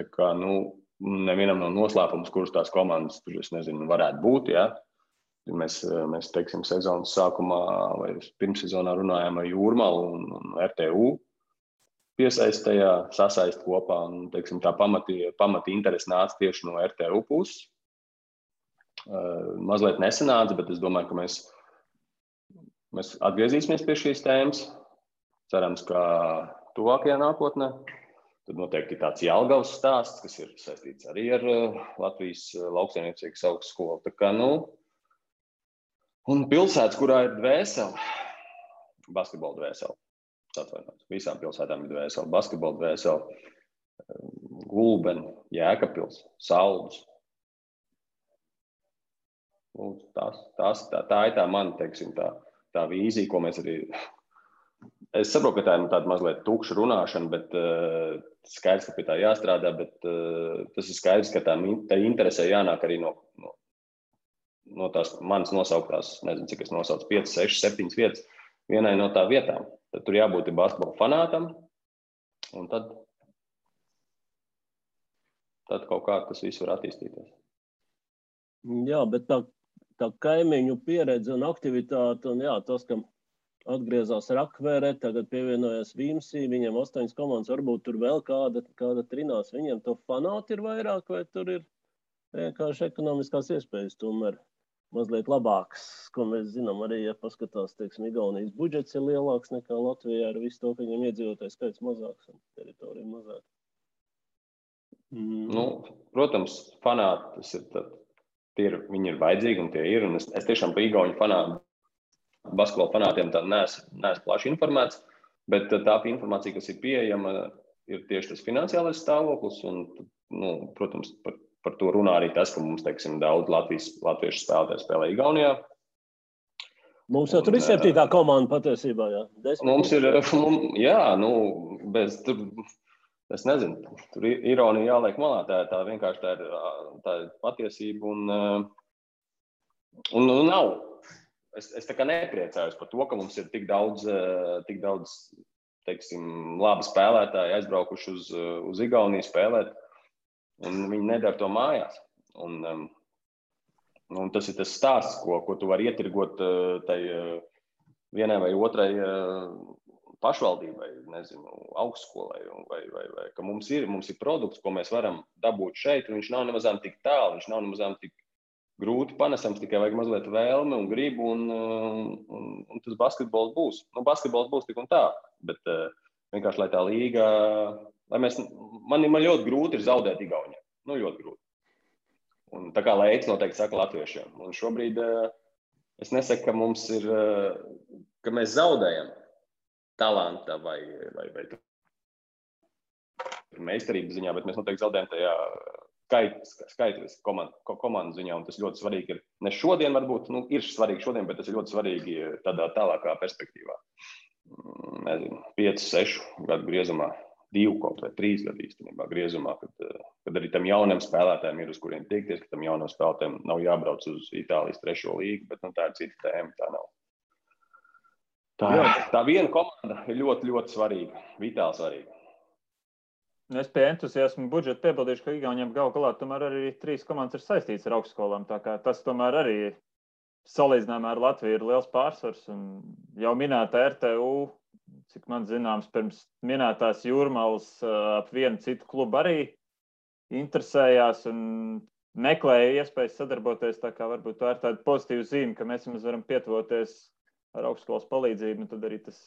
tā kā, nevienam nav noslēpums, kuras tās komandas tur, es nezinu, varētu būt, ja? Mēs teiksim, sezonas sākumā vai pirmssezonā runājām ar Jūrmalu un RTU. Piesaistējā, sasaist kopā, un, teiksim, tā pamati interesi nāca tieši no RTU puses. Mazliet nesanāca, bet es domāju, ka mēs atgriezīsimies pie šīs tēmas. Cerams, ka tuvākajā nākotnē. Tad noteikti tāds Jelgavas stāsts, kas ir saistīts arī ar Latvijas lauksaimniecības augstskolu. Tā kā, un pilsētas, kurā ir dvēsele, basketbola dvēsele. Visām pilsētām ir dvēseli, basketbola dvēseli, Gulbeni, Jēkabpils, Saldus. Tā ir tā mana, teiksim, tā vīzija, ko mēs arī... Es saprotu, ka tā ir tāda mazliet tukša runāšana, bet skaidrs, ka pie tā jāstrādā, bet tas ir skaidrs, ka tā interesē jānāk arī no tās manas nosauktās, nezinu, cik es nosaucu, 5, 6, 7 vietas, vienai no tā vietām. Tad tur jābūt basketbola fanātam, un tad kaut kā tas viss var attīstīties. Jā, bet tā kaimiņu pieredze un aktivitāte, un jā, tas, ka atgriezās Rakvere, tagad pievienojās Vimsī, viņiem 8 komandas, varbūt tur vēl kāda trinās, viņiem to fanāti ir vairāk, vai tur ir vienkārši ekonomiskās iespējas tomēr mazliet labāks, ko mēs zinām arī, ja paskatās, teiksim, Igaunijas budžets ir lielāks nekā Latvijā ar visu to, ka viņiem iedzīvotājs skaits mazāks un teritorija mazāk. Protams, fanāti, viņi ir vajadzīgi un tie ir, un es tiešām pa Igauņu fanātu, basketbola fanātiem tā neesmu plaši informēts, bet tā informācija, kas ir pieejama, ir tieši tas finansiālais stāvoklis, un, protams, par to runā arī tas, ka mums, teiksim, daudz latviešu spēlētāji spēlē Igaunijā. Mums jau tur ir 7. komanda patiesībā, jā. Mums ir, jā, bez tur, es nezinu, tur ironija jāliek malā, tā vienkārši tā ir patiesība un nav. Es tā kā nepriecājos par to, ka mums ir tik daudz, teiksim, labi spēlētāji aizbraukuši uz Igauniju spēlēt. Un viņi nedara to mājās. Un tas ir tas stāsts, ko tu vari ietirgot tai vienai vai otrai pašvaldībai, nezinu, augstskolai, vai ka mums ir produkts, ko mēs varam dabūt šeit, un viņš nav nemazām tik tālu, viņš nav nemazām tik grūti panesams, tikai vajag mazliet vēlme un gribu, un tas basketbols būs. Basketbols būs tik un tā, bet vienkārši, lai tā līga... Man ļoti grūti ir zaudēt Igaunijā. Ļoti grūti. Un tā kā Leids noteikti saka latviešiem. Un šobrīd es nesaku, ka mums ir, ka mēs zaudējam talanta vai meistarības ziņā, bet mēs noteikti zaudējam tajā skaitlis komandu ziņā. Un tas ļoti svarīgi ir, ne šodien varbūt, ir svarīgi šodien, bet tas ir ļoti svarīgi tādā tālākā perspektīvā. Nezinu, 5, 6 gadu griezumā. 2 kaut vai 3 gadu īstenībā griezumā, kad arī tam jauniem spēlētājiem ir uz kuriem tiekties, ka tam jauniem spēlētājiem nav jābrauc uz Itālijas 3. līgu, bet tā ir cita tēma, tā nav. Tā viena komanda ir ļoti, ļoti svarīga, vitāli svarīga. Es pie entuziasmu budžeta piebildīšu, ka Igauniem gal galā tomēr arī 3 komandas ir saistīts ar augstskolām. Tā kā tas tomēr arī salīdzinājumā ar Latviju ir liels pārsvars. Un jau minēta RTU, cik man zināms, pirms minētās Jūrmalas ap vienu citu klubu arī interesējās un meklēja iespējas sadarboties. Tā kā varbūt tā ir tāda pozitīva zīme, ka mēs varam pietuvoties ar augstskolas palīdzību. Un tad arī tas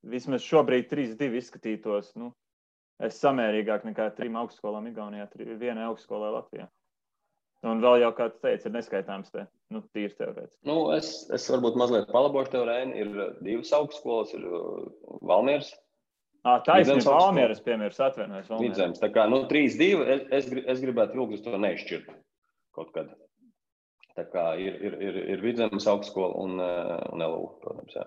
vismaz šobrīd 3-2 izskatītos. Es samērīgāk nekā 3 augstskolām Igaunijā, 1 augstskolā Latvijā. Un vēl jau, kā tu teici, ir neskaitāms te, tīri teorētiski. Es varbūt mazliet palabošu tev, Reini. Ir 2 augstskolas, ir Valmieras. Taisnība, Valmieras, piemērs, atvainojas Valmieras. Vidzemes, tā kā 3-2, es gribētu ilgus to neizšķirt kaut kad. Tā kā ir Vidzemes augstskola un LU, protams, jā.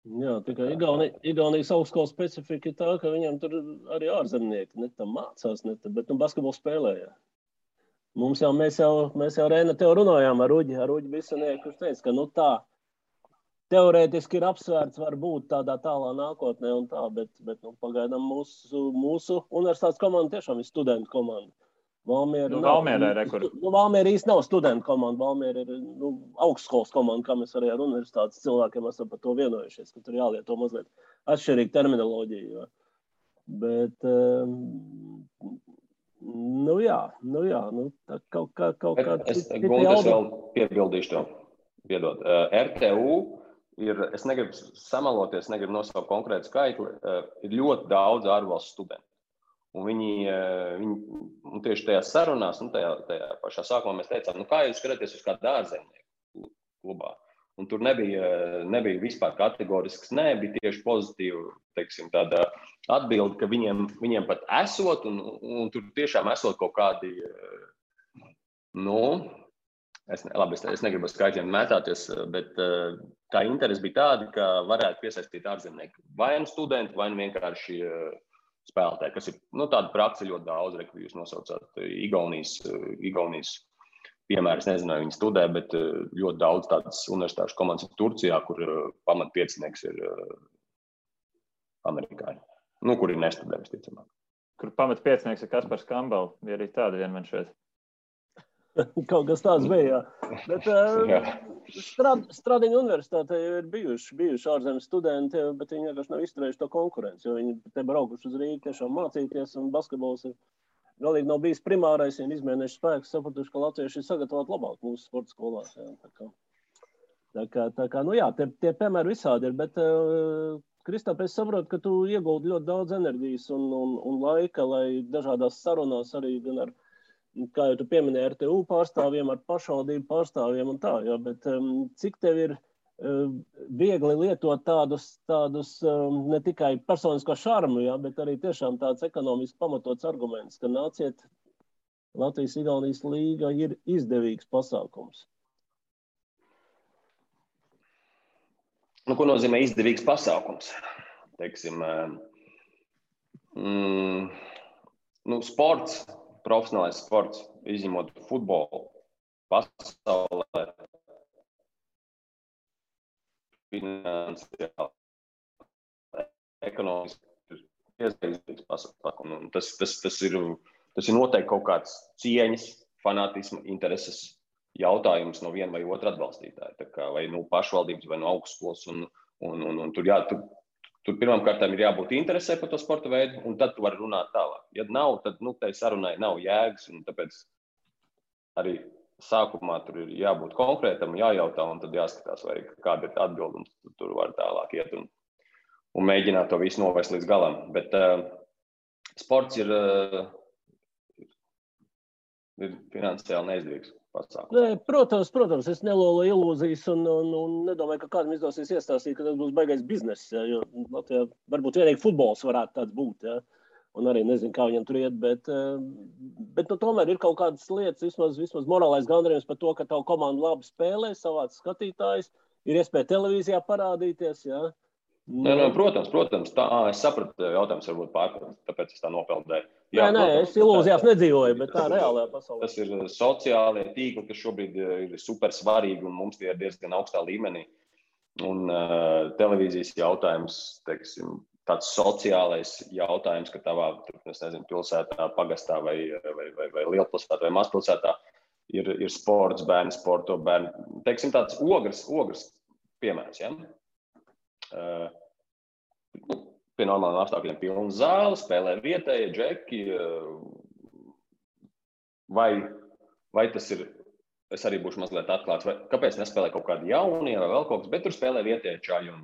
Jā, tikai Igaunijas augstskolas specifika ir tā, ka viņam tur arī ārzemnieki ne tam mācās, bet basketbolu spēlēja. Mēs jau Reina tev runājām ar Uģi Bisanieku, kurš teica, ka tā teorētiski ir apsvērts varbūt tādā tālā nākotnē un tā, bet pagaidām mūsu universitātes komanda tiešām ir studentu komanda. Valmiera īsti nav studentu komanda, Valmiera ir augstskolas komanda, kā mēs arī ar universitātes cilvēkiem esam par to vienojušies, ka tur jālieto mazliet atšķirīga terminoloģija. Bet, tā kaut kā... Es vēl piebildīšu to, piedod. RTU ir, es negribu samaloties, negribu nosaukt konkrētu skaitli, ir ļoti daudz ārvalstu studentu. Un viņi tieši tajās sarunās, tajā pašā sākumā mēs teicām, kā jūs skatāties uz kādu ārzemnieku klubā. Un tur nebija vispār kategorisks, bija tieši pozitīva, teiksim, tāda atbilde, ka viņiem pat esot, un tur tiešām esot kaut kādi, es negribu skaitļiem mētāties, bet tā interese bija tāda, ka varētu piesaistīt ārzemnieku. Vai nu studenti, vai nu vienkārši spēlētāji, kas ir tāda praksa ļoti daudz, ka jūs nosaucāt Igaunijas piemērs, nezinu, vai viņi studē, bet ļoti daudz tādas universitāšu komandas ir Turcijā, kur pamatpiecinieks ir amerikāņi, kur ir nestudē, visticamāk. Kur pamatpiecinieks ir Kaspars Kambala, bija arī tāda vienmēr šeit. Kaut kas tāds bija, jā. Bet Stradiņa universitātē ir bijuši ārzemes studenti, bet viņi vienkārši nav izturējuši to konkurenci, jo viņi te braukuši uz Rīgu tiešām mācīties, un basketbols ir galīgi nav bijis primārais, un izmēnējuši spēkus, sapratuši, ka latvieši ir sagatavoti labāk mūsu sporta skolās. Tā kā, tie piemēri visādi ir, bet, Kristap, es saprotu, ka tu ieguldi ļoti daudz enerģijas un laika, lai dažādās sarunās arī gan ar, kā jau tu pieminēji, RTU pārstāvjiem, ar pašvaldību pārstāvjiem un tā, jā, bet cik tev ir viegli lietot tādus ne tikai personisko šarmu, jā, bet arī tiešām tāds ekonomiski pamatots arguments, ka nāciet, Latvijas-Igaunijas līga ir izdevīgs pasākums. Ko nozīmē izdevīgs pasākums? Teiksim, sports, profesionālais sports, izņemot futbolu, pasaulē, finansiāli, ekonomiski ir izdevīgs pasākums. Tas ir noteikti kaut kāds cieņas, fanātisma, intereses jautājums no viena vai otra atbalstītāja. Tā kā vai pašvaldības, vai no augstskolas. Un tur pirmām kārtām ir jābūt interesē par to sporta veidu, un tad tu vari runāt tālāk. Ja nav, tad tai sarunai nav jēgas, un tāpēc arī sākumā tur ir jābūt konkrētam, jājautā, un tad jāskatās, vai kāda ir atbilde, un tur var tālāk iet un mēģināt to visu novest līdz galam. Bet sports ir finansiāli neizdevīgs pasākums. Protams, es nelolu ilūzijas un nedomāju, ka kādam izdosies iestāstīt, ka tas būs baigais bizness, jo Latvijā varbūt vienīgi futbols varētu tāds būt, ja? Un arī nezinu, kā viņam tur iet, bet tomēr ir kaut kādas lietas, vismaz morālais gandarījums par to, ka tavu komandu labi spēlē, savāc skatītājs, ir iespēja televīzijā parādīties, ja? Protams, tā, es sapratu, jautājums varbūt pārpildīt, tāpēc es tā nopeldēju. Nē, es ilūzijās nedzīvoju, bet tā reālajā pasaulē. Tas ir sociālie tīkli, kas šobrīd ir super svarīgi, un mums tie ir diezgan augstā līmenī. Un televīzijas jautājums, teiksim, tāds sociālais jautājums, ka tavā, es nezinu, pilsētā, pagastā vai lielpilsētā vai mazpilsētā ir sports, bērni sporto, bērni. Teiksim, tāds ogres piemērs, ja? Pie normāliem apstākļiem pilna zāle, spēlē vietēji, džeki. Vai tas ir, es arī būšu mazliet atklāts, kāpēc nespēlē kaut kādi jaunie vai vēl kaut kas, bet tur spēlē vietēji čaļi un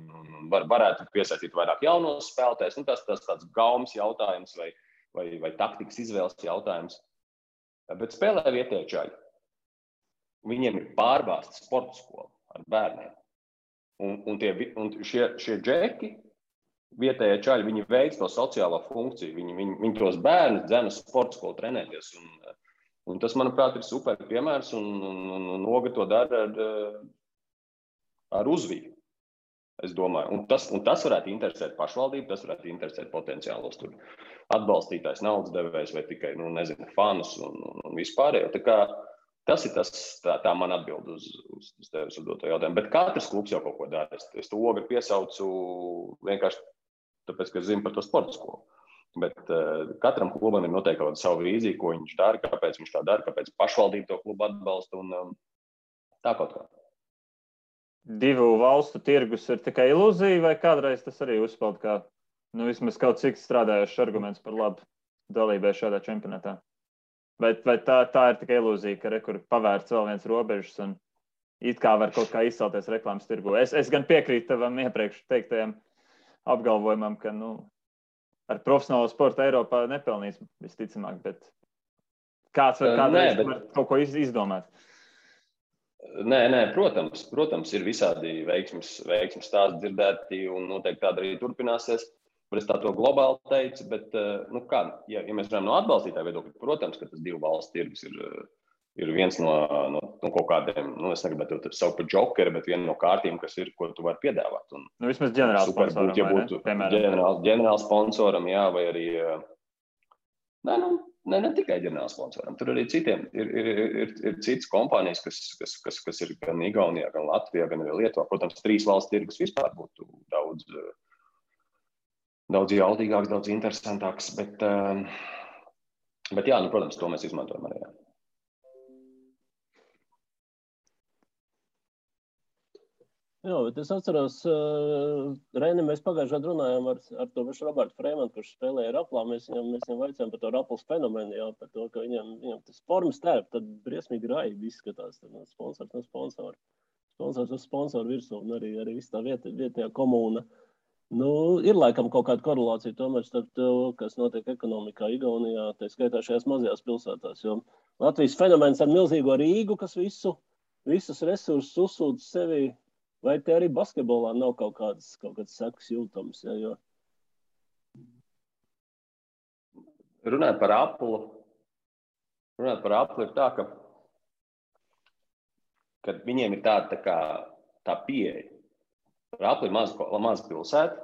varētu piesaistīt vairāk jaunos spēlētājus. Tas tāds gaumas jautājums vai taktikas izvēles jautājums. Bet spēlē vietēji čaļi. Viņiem ir pārbāzta sporta skola ar bērniem. Un šie džeki, vietējie čaļi, viņi veic to sociālo funkciju. Viņi tos bērnus dzena sporta skolu trenēties. Un tas, manuprāt, ir super piemērs. Un Oga to dara ar uzviju, es domāju. Un tas varētu interesēt pašvaldību, tas varētu interesēt potenciālos tur atbalstītājs, naudas devējs vai tikai, fanus un vispārējo. Tā kā tas ir tā man atbild uz tevis uzdoto jautājumu. Bet katrs klubs jau kaut ko dara. Es to Ogri piesaucu vienkārši tāpēc, ka es zinu par to sporta skolu. Bet katram klubam ir noteikti kaut kāda savu vīziju, ko viņš dara, kāpēc viņš tā dara, kāpēc pašvaldība to klubu atbalsta un tā kaut kā. Divu valstu tirgus ir tikai ilūzija, vai kādreiz tas arī uzspēlēt kā vismaz kaut cik strādājošs arguments par labu dalībai šādā čempionātā? Vai tā ir tikai ilūzija, ka rekur pavērts vēl viens robežas un it kā var kaut kā izcelties reklāmas tirgu? Es gan piekrītu tavam iepriekš teiktajam apgalvojumam, ka ar profesionālo sportu Eiropā nepelnīs visticamāk, bet kāds var kaut ko izdomāt? Nē, protams, ir visādi veiksmes stāsti dzirdēti un noteikti tāda arī turpināsies. Es tā to globāli teicu, bet, ja mēs runājam no atbalstītāja viedokļa, protams, ka tas divu valstu tirgus ir viens no kaut kādiem, es negribētu to saukt par džokeri, bet viena no kārtīm, kas ir, ko tu vari piedāvāt. Vismaz ģenerāls sponsoram, ja būtu ģenerāls sponsoram, jā, vai arī, ne tikai ģenerāls sponsoram, tur arī citiem ir citas kompānijas, kas ir gan Igaunijā, gan Latvijā, gan arī Lietuvā. Protams, 3 valstu tirgus vispār būtu daudz jaudīgāks, daudz interesantāks, bet jā, protams, to mēs izmantojam arī. Jā, bet es atceros, Reini, mēs pagājušajā runājām ar to pašu Robertu Freimanu, kurš spēlēja Raplā. Mēs viņam vaicājām par to Raplas fenomenu, jā, par to, ka viņam tas formas tērp, tad briesmīgi raibi izskatās. Sponsors no sponsora. Sponsors uz sponsoru virsū un arī viss tā vietējā komūna. Ir laikam kaut kāda korelācija tomēr starp to, kas notiek ekonomikā Igaunijā, tā skaitā šajās mazajās pilsētās, jo Latvijas fenomens ar milzīgo Rīgu, kas visus resursus uzsūdz sevi, vai te arī basketbolā nav kaut kāds sekas jūtams, ja, jo? Runājot par Aplu ir tā, ka viņiem ir tā pieeja. Rapla ir maza pilsēta,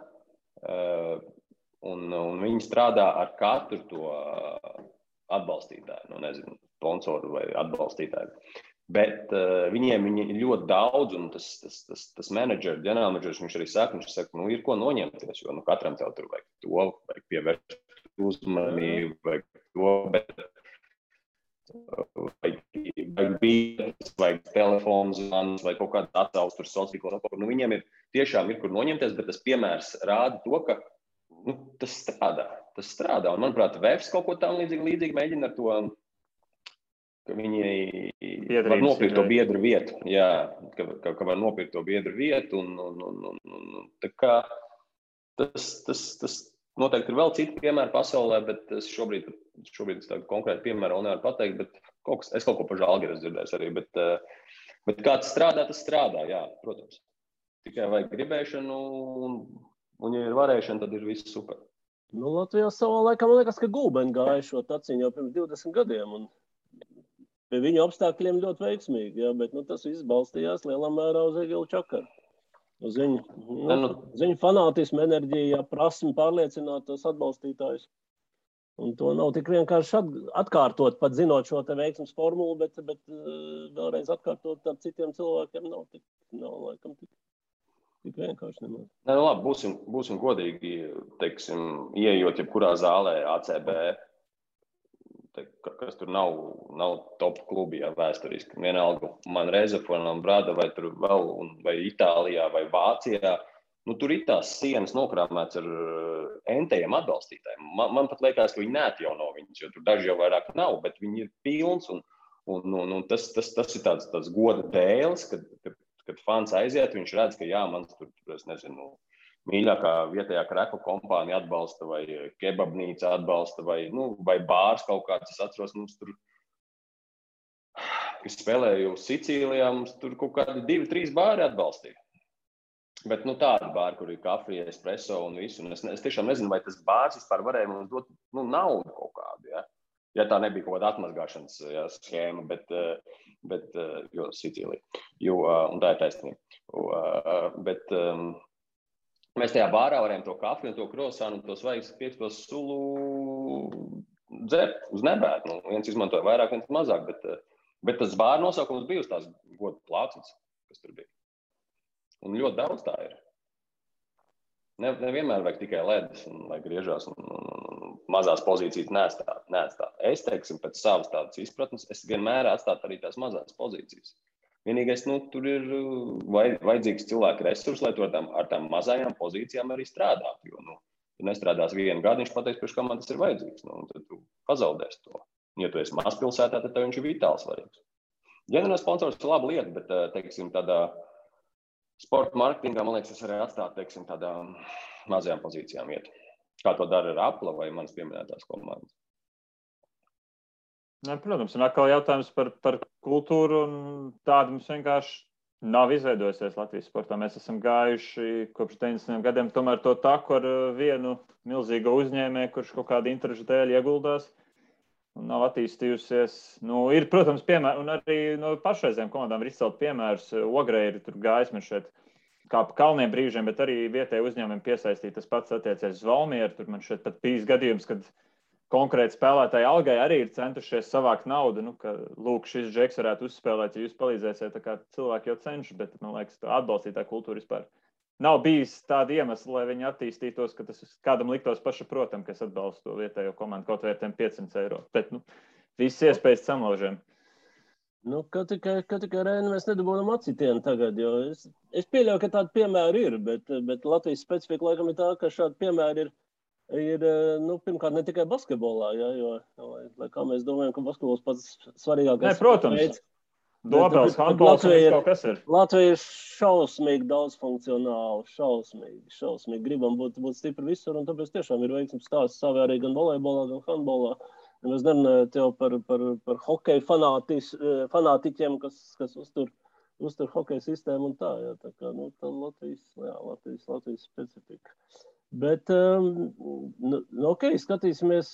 un viņi strādā ar katru to atbalstītāju, sponsoru vai atbalstītāju. Bet viņiem ir ļoti daudz, un tas ģenerālmenedžers, viņš arī saka, ir ko noņemties, jo katram tev tur vajag to, vajag pievērst uzmanību, vajag to, bet vajag bītas, vajag telefons, vai kaut kāds atsauc tur sociāli. Viņiem tiešām ir kur noņemties, bet tas piemērs rāda to, ka tas strādā. Un, manuprāt, Vēfs kaut ko tam līdzīgi mēģina ar to, ka viņi var nopirkt to biedru vietu. Jā, ka var nopirkt to biedru vietu. Un tā kā tas noteikti ir vēl citi piemēri pasaulē, bet es šobrīd tādu konkrētu piemēru vēl nevaru pateikt, bet es kaut ko par Žalgiris dzirdēju arī, bet kā tas strādā, jā, protams. Tikai vajag gribēšanu, un ja ir varēšana, tad ir viss super. Latvijā savā laikā, man liekas, ka Gulbeni gāja šo taciņu jau pirms 20 gadiem, un pie viņu apstākļiem ļoti veiksmīgi, jā, bet tas viss balstījās lielā mērā uz Egilu Čakaru. Uz viņu fanātismu, enerģiju, prasmi pārliecināt tos atbalstītājus. Un to nav tik vienkārši atkārtot, pat zinot šo te veiksmes formulu, bet vēlreiz atkārtot ar citiem cilvēkiem nav laikam tik tik vienkārši nemaz. Nē, nu labi, būsim godīgi, teiksim, ieejot jebkurā zālē ACB, kas tur nav top klubi, ja, vēsturiski. Vienalga man Rezafonam, Brada vai tur vēl, vai Itālijā vai Vācijā. Nu, tur ir tās sienas nokrāmēts ar entējiem atbalstītājiem. Man pat liekas, ka viņi neatjauno viņus, jo tur daži jau vairāk nav, bet viņi ir pilns un tas ir tāds goda dēls, kad fans aiziet, viņš redz, ka jā, mans tur, es nezinu, mīļākā vietējā kreku kompānija atbalsta vai kebabnīca atbalsta vai bārs kaut kāds. Es atceros, mums tur, kas spēlēju Sicīlijā, mums tur kaut kādi 2-3 bāri atbalstīja. Bet tādi bāri, kur ir kafija, espresso un visu. Un es tiešām nezinu, vai tas bārs vispār varēja mums dot naudu kaut kādu. Ja tā nebija kaut kāda atmazgāšanas schēma, bet jo Sicīlija. Un tā ir taisnība. Mēs tajā bārā varējām to kafiju un to krosānu un to svaigas piektos sulu dzert uz nebētu. Viens izmantoja vairāk, viens mazāk, bet tas bāra nosaukums bija uz tās goda plācas, kas tur bija. Un ļoti daudz tā ir. Nevienmēr vajag tikai ledus un lai griežās un mazās pozīcijas neatstāt. Es, teiksim, pēc savas tādas izpratnes, es vienmēr atstātu arī tās mazās pozīcijas. Vienīgais, tur ir vajadzīgs cilvēku resursi, lai tu ar tām mazajām pozīcijām arī strādātu. Jo, tu nestrādās vienu gadu, viņš pateiks, priekš kā man tas ir vajadzīgs. Tad tu pazaudēsi to. Ja tu esi mazpilsētā, tad tev viņš ir vitāli svarīgs. Ģenerāls sponsors ir laba lieta, bet, teiksim, tādā sporta marketingā, man liekas, es arī atstātu, teiksim, tādām mazajām pozīcijām iet. Kā to dara ar Apple vai manas pieminētās komandas. Protams, un atkal jautājums par kultūru, un tāda mums vienkārši nav izveidojusies Latvijas sportā. Mēs esam gājuši kopš 90 gadiem tomēr to taku ar vienu milzīgu uzņēmēju, kurš kaut kādu interešu dēļ ieguldās un nav attīstījusies. Ir, protams, piemēri, un arī no pašreizējām komandām ir izcelt piemērus. Ogrei ir tur gājis man šeit kā pa kalniem brīžiem, bet arī vietēji uzņēmumi piesaistīt. Tas pats attiecies uz Valmieru. Tur man šeit pat bijis gadījums, kad konkrēti spēlētāji algai arī ir centušies savākt naudu, ka, lūk, šis džeks varētu uzspēlēt, ja jūs palīdzēsiet, tā kā cilvēki jau cenšas, bet, man liekas, tā atbalstītāja kultūra vispār nav bijis tāda iemesla, lai viņi attīstītos, ka tas kādam liktos pašaprotam, ka es atbalstu to vietējo komandu kaut vērtēm 500 eiro. Bet, visas iespējas samlaužiem. Ka tikai Reini mēs nedabūnam acitienu tagad, jo es pieļauju, ka tādi piemēri ir, bet Latvijas specifika laikam ir tā, ka šādi piemēri ir pirmkārt ne tikai basketbolā, jo lai kā mēs domājam, ka basketbols pats svarīgākais. Protams. Dobels, handbols, kaut kas ir. Latvija ir šausmīgi daudzfunkcionāli, šausmīgi. Gribam būt stipri visur, un tāpēc tiešām ir veiksmes stāsts savi arī gan volejbolā, gan handbolā. Es nerunāju tev par hokeju fanātiķiem, kas uztur hokeju sistēmu un tā. Tā kā, tā Latvijas specifika. Bet, skatīsimies,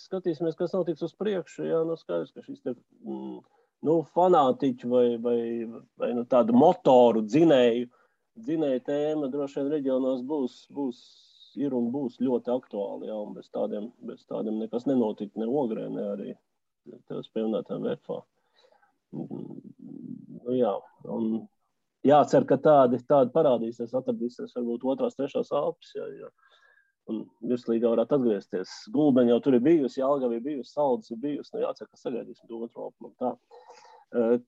kas notiks uz priekšu. Jā, skaidrs, ka šis te, fanātiķu vai tādu motoru dzinēju tēma droši vien reģionos ir un būs ļoti aktuāli. Jā, un bez tādiem nekas nenotikt ne Ogrē, ne arī tev pieminētām VFA. Jā, un jācer, ka tādi parādīsies, atradīsies varbūt 2., 3. Alpes, jā. Un virslīgā varētu atgriezties. Gulbeņa jau tur ir bijusi, Jelgava ir bijusi, Saldus ir bijusi. Jācer, ka sagaidīsim to 2. Alpu. Tā.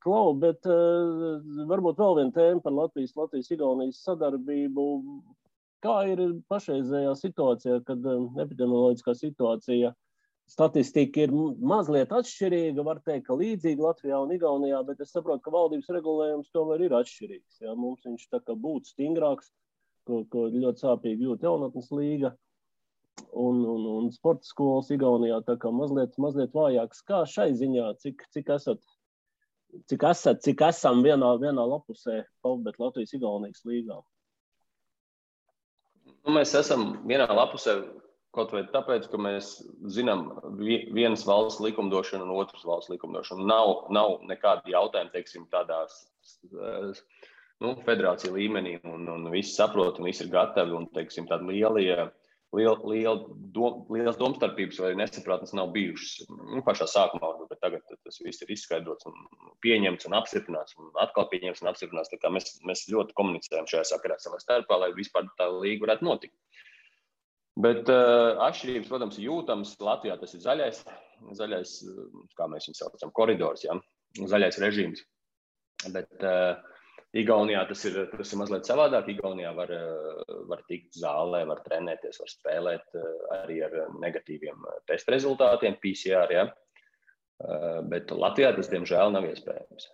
Klau, bet varbūt vēl viena tēma par Latvijas-Igaunijas sadarbību. Kā ir pašreizējā situācijā, kad epidemioloģiskā situācija, statistika ir mazliet atšķirīga, var teikt, ka līdzīga Latvijā un Igaunijā, bet es saprotu, ka valdības regulējums tomēr ir atšķirīgs. Jā, mums viņš tā kā būtu stingrāks, ko ļoti sāpīgi jūt jaunatnes līga un sporta skolas Igaunijā tā kā mazliet vājāks. Kā šai ziņā, cik esam vienā lapusē PAVBet Latvijas-Igaunijas līgā? Mēs esam vienā lapusē kaut vai tāpēc, ka mēs zinām vienas valsts likumdošanu un otras valsts likumdošanu. Nav nekādi jautājumi, teiksim, tādās federācija līmenī un visi saprot un visi ir gatavi un, teiksim, tādi lielie Lielas domstarpības vai nesapratnes nav bijušas. Pašā sākumā, bet tagad tas viss ir izskaidrots un pieņemts un apstiprināts un atkal pieņemts un apstiprināts. Tā kā mēs ļoti komunicējam šajā sakarā savā starpā, lai vispār tā līga varētu notikt. Bet atšķirības, protams, jūtams. Latvijā tas ir zaļais, kā mēs viņu saucam, koridors, ja? Zaļais režīms. Bet Igaunijā tas ir mazliet savādāk. Igaunijā var tikt zālē, var trenēties, var spēlēt arī ar negatīviem testa rezultātiem, PCR, ja? Bet Latvijā tas, diemžēl, nav iespējams.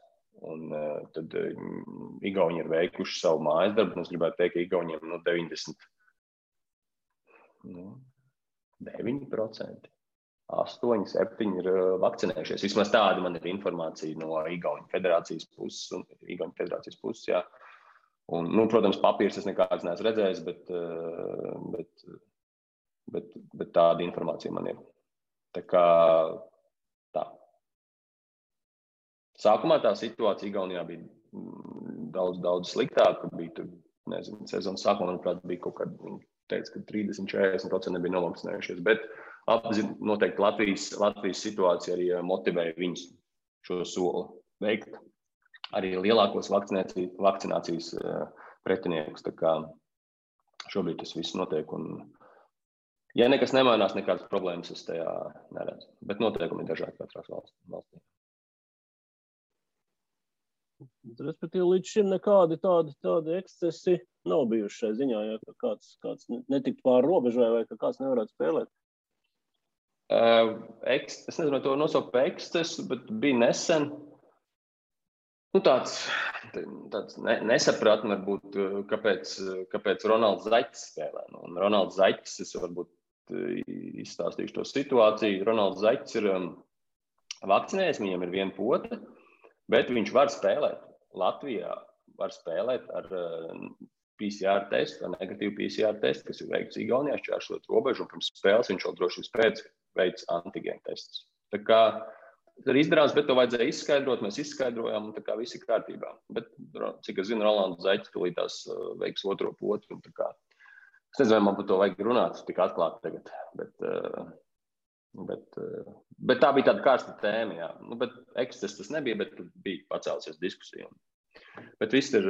Un tad Igauni ir veikuši savu mājas darbu, un es gribētu teikt, ka Igauniem 9%, 8-7 ir vakcinējušies. Vismaz tāda man ir informācija no Igauņu federācijas puses, jā. Un, protams, papīrs es nekāds neesmu redzējis, bet tāda informācija man ir. Tā kā tā. Sākumā tā situācija Igaunijā bija daudz sliktāka. Bija, sezonas sākumā, manuprāt, bija kaut kāda, teica, ka 30-40% nebija novakcinējušies, bet noteikti Latvijas situācija arī motivēja viņus šo soli veikt. Arī lielākos vakcinācijas pretiniekus. Tā kā šobrīd tas viss notiek. Un, ja nekas nemainās, nekādas problēmas es tajā neredzu. Bet noteikumi ir dažādi katrās valstī. Respektīvi, līdz šim nekādi tādi ekscesi nav bijuši šai ziņā, ja kāds netiktu pāri robežai vai ka kāds nevarētu spēlēt. Es nezinu, vai to nosaukt par ekscesu, bet bija nesen tāds nesapratni varbūt, kāpēc Ronalds Zaķis spēlē. Un Ronalds Zaķis, es varbūt izstāstīšu to situāciju. Ronalds Zaķis ir vakcinējies, viņam ir viena pote, bet viņš var spēlēt. Latvijā var spēlēt ar PCR testu, ar negatīvu PCR testu, kas ir veikts Igaunijā, šķēršot robežu, un pirms spēles viņš vēl drošības pēc veids antigēnu testus. Tā kā tas ir izdarāms, bet to vajadzēja izskaidrot, mēs izskaidrojām, un tā kā viss ir kārtībā. Bet, cik es zinu, Rolands Zaķis tulītās veiks otro potu, un tā kā es nezinu, vai man par to vajag runāt, tik atklāti tagad, bet tā bija tāda karsta tēma, jā. Bet eksces tas nebija, bet bija pacēlusies diskusija. Bet viss ir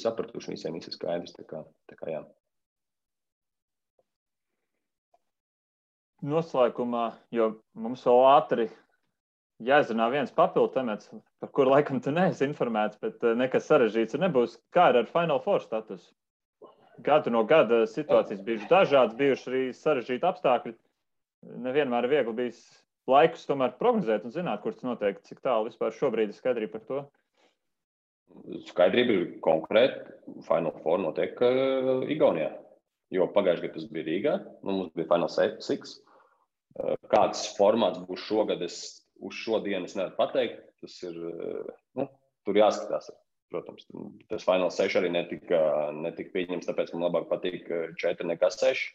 sapratuši, visiem viss ir skaidrs, tā kā jā. Noslēgumā, jo mums vēl ātri jāizrunā viens papildu temats, par kuru laikam tu neesi informēts, bet nekas sarežģīts nebūs. Kā ir ar Final Four statusu? Gadu no gada situācijas bijušas dažādas, bijuši arī sarežģīti apstākļi. Nevienmēr ir viegli bijis laikus tomēr prognozēt un zināt, kur tas notiek, cik tālu vispār šobrīd ir skaidrība par to. Skaidrība ir konkrēti. Final Four notiek Igaunijā, jo pagājušajā gadā tas bija Rīgā, mums bija Final Six. Kāds formāts būs šogad, uz šodienu es nevaru pateikt. Tas ir, tur jāskatās. Protams, tas Final 6 arī netika pieņems, tāpēc man labāk patīk 4 nekā 6,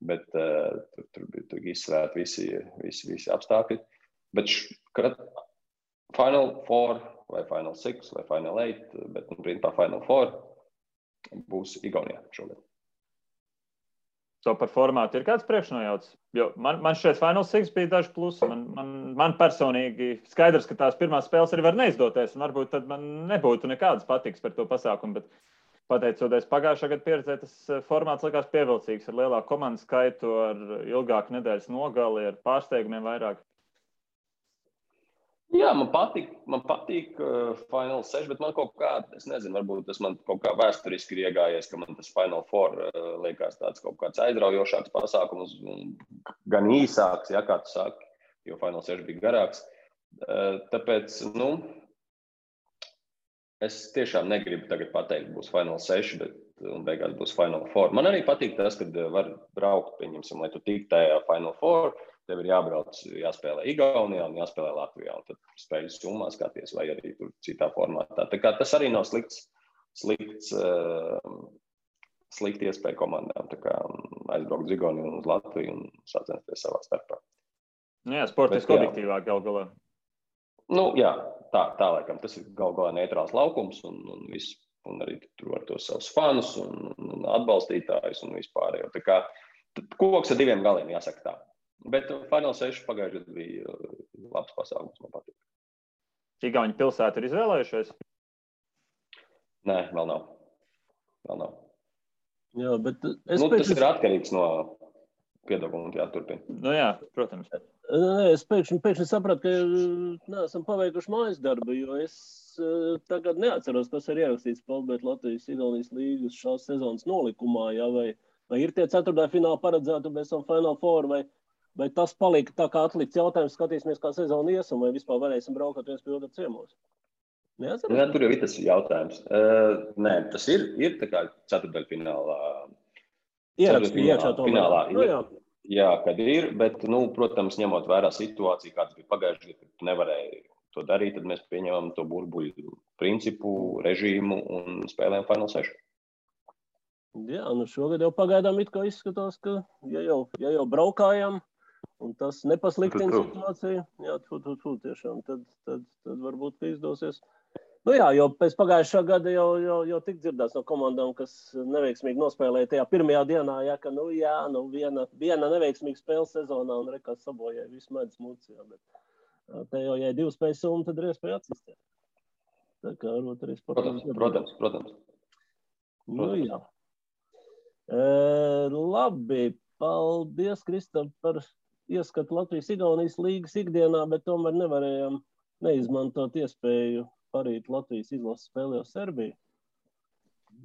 bet tur bija izsvērt visi apstākļi. Bet Final 4 vai Final 6 vai Final 8, bet principā Final 4 būs Igaunijā šogad. To par formātu ir kāds priekšnojauts? Jo man šeit Final 6 bija daži plusi. Man personīgi skaidrs, ka tās pirmās spēles arī var neizdoties, un varbūt tad man nebūtu nekādas patiks par to pasākumu, bet pateicoties pagājušā gada pieredzē, tas formāts likās pievilcīgs ar lielāku komandu skaitu, ar ilgāku nedēļas nogali, ar pārsteigumiem vairāk. Jā, man patīk Final 6, bet man kaut kā, es nezinu, varbūt tas man kaut kā vēsturiski ir iegājies, ka man tas Final 4 liekas tāds kaut kāds aizraujošāks pasākums, gan īsāks, ja, kā tu saki, jo Final 6 bija garāks. Tāpēc, es tiešām negribu tagad pateikt, būs Final 6, un beigās būs Final 4. Man arī patīk tas, kad var braukt, pieņemsim, lai tu tik tajā Final 4, tev ir jābrauc, jāspēlē Igaunijā un jāspēlē Latvijā, un tad spēļu summā skaties, vai arī tur citā formātā. Tā kā tas arī nav slikti iespēja komandām, tā kā aizbraukt uz Igauniju un uz Latviju un sacensties savā starpā. Jā, sportiski objektīvāk gal galā. Jā, tā laikam, tas ir gal galā neitrāls laukums un viss un arī tur var tos savus fanus un atbalstītājus un vispārējo. Tā kā koks ar 2 galiem, jāsaka tā. Bet Final 6 pagājušajā gadā bija labs pasākums, man patīk. Igauņu pilsētu ir izvēlējušies? Nē, vēl nav. Jā, bet tas ir atkarīgs no piedāvājuma, jāturpina. Nu jā, protams. Es pēkšņi sapratu, ka neesam paveikuši mājas darbu, jo es tagad neatceros, kas ir ierakstīts Palbēt Latvijas-Igaunijas līgas šās sezonas nolikumā, jā, vai ir tie 4. fināli paredzēti bez Final Four, vai tas palika tā kā atlikts jautājums, skatīsimies, kā sezona iesam, vai vispār varēsim braukt viens pie otra ciemos? Neatceros? Jā, tur jau ir tas jautājums. Nē, tas ir tā kā 4. finālā. Ierakstīja iekšā to finālā. Nu, jā. Jā, kad ir, bet, protams, ņemot vērā situāciju, kāds bija pagājušajā gadā, kad nevarēja to darīt, tad mēs pieņemam to burbuļu principu, režīmu un spēlējam Final 6. Jā, šogad jau pagaidām it kā izskatās, ka ja jau braukājam, un tas nepasliktina situāciju, jā, tiešām, tad varbūt, ka izdosies. Nu jā, jo pēc pagājušā gada jau tik dzirdēts no komandām, kas neveiksmīgi nospēlēja tajā pirmajā dienā, ja, ka viena neveiksmīga spēle sezonā un rekas sabojāja visu medus mucījā, bet te jau, ja 2 spējas summa, tad ir iespēja atsistēt. Tā kā varbūt arī sportam. Protams. Nu jā. Labi, paldies, Kristap, par ieskatu Latvijas-Igaunijas līgas ikdienā, bet tomēr nevarējām neizmantot iespēju parīt Latvijas izlases spēlē uz Serbiju.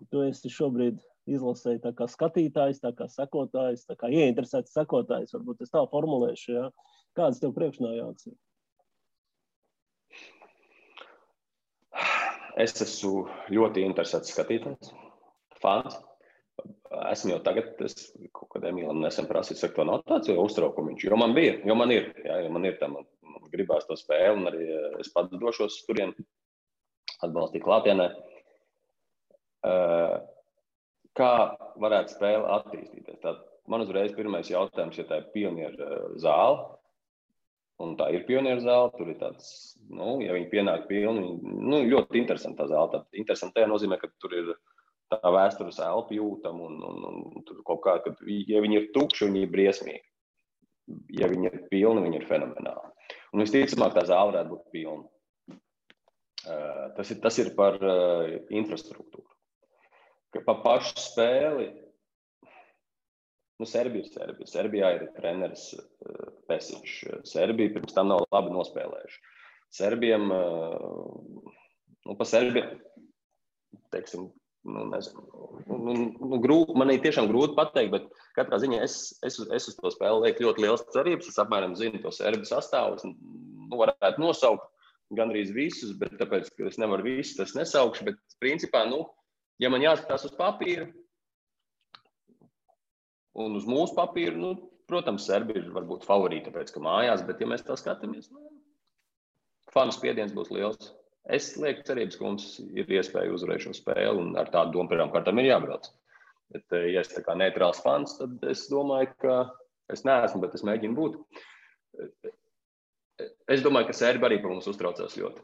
Tu esi šobrīd izlasēji tā kā skatītājs, tā kā sekotājs, tā kā ieinteresēts sekotājs, varbūt es tā formulēšu, jā. Kādas tev priekšnājāts ir? Es esmu ļoti interesēts skatītājs, fans. Esmu jau tagad, kaut kad Emīlam nesen prasīju, saka, to nav tāds jau uztraukumiņš, jo man ir, tā man gribās to spēli, un arī es pats došos turien atbalstīt klātienē. Kā varētu spēle attīstīties? Tad man uzreiz pirmais jautājums, ja tā ir pionieru zāle, un tā ir pionieru zāle, tur ir tāds, ja viņi pienāk pilni, ļoti interesanta tā zāle. Tad interesanti tajā nozīmē, ka tur ir tā vēstures elpa jūtama, un tur kaut kā, ka, ja viņi ir tukši, viņi ir briesmīgi. Ja viņi ir pilni, viņi ir fenomenāli. Un visticamāk, tā zāle varētu būt pilna. Tas ir par infrastruktūru. Par pašu spēli, Serbija ir Serbija. Serbijā ir treneris Pesiņš. Serbija pirms tam nav labi nospēlējuši. Serbiem, pa Serbiem, teiksim, man ir tiešām grūti pateikt, bet katrā ziņā es uz to spēli lieku ļoti liels cerības. Es apmēram zinu to Serbi sastāvus, varētu nosaukt gandrīz visus, bet tāpēc, ka es nevaru visus, tas nesaukšu, bet principā, ja man jāskatās uz papīru un uz mūsu papīru, protams, Serbi ir varbūt favorīti, tāpēc, ka mājās, bet ja mēs tā skatāmies, fanu spiediens būs liels. Es lieku cerības, ka mums ir iespēja uzvarēt šo spēli un ar tādu domu pirmām kārtām ir jābrauc. Bet, ja es tā kā neitrāls fans, tad es domāju, ka es neesmu, bet es mēģinu būt. Es domāju, ka Serbi arī par mums uztraucās ļoti.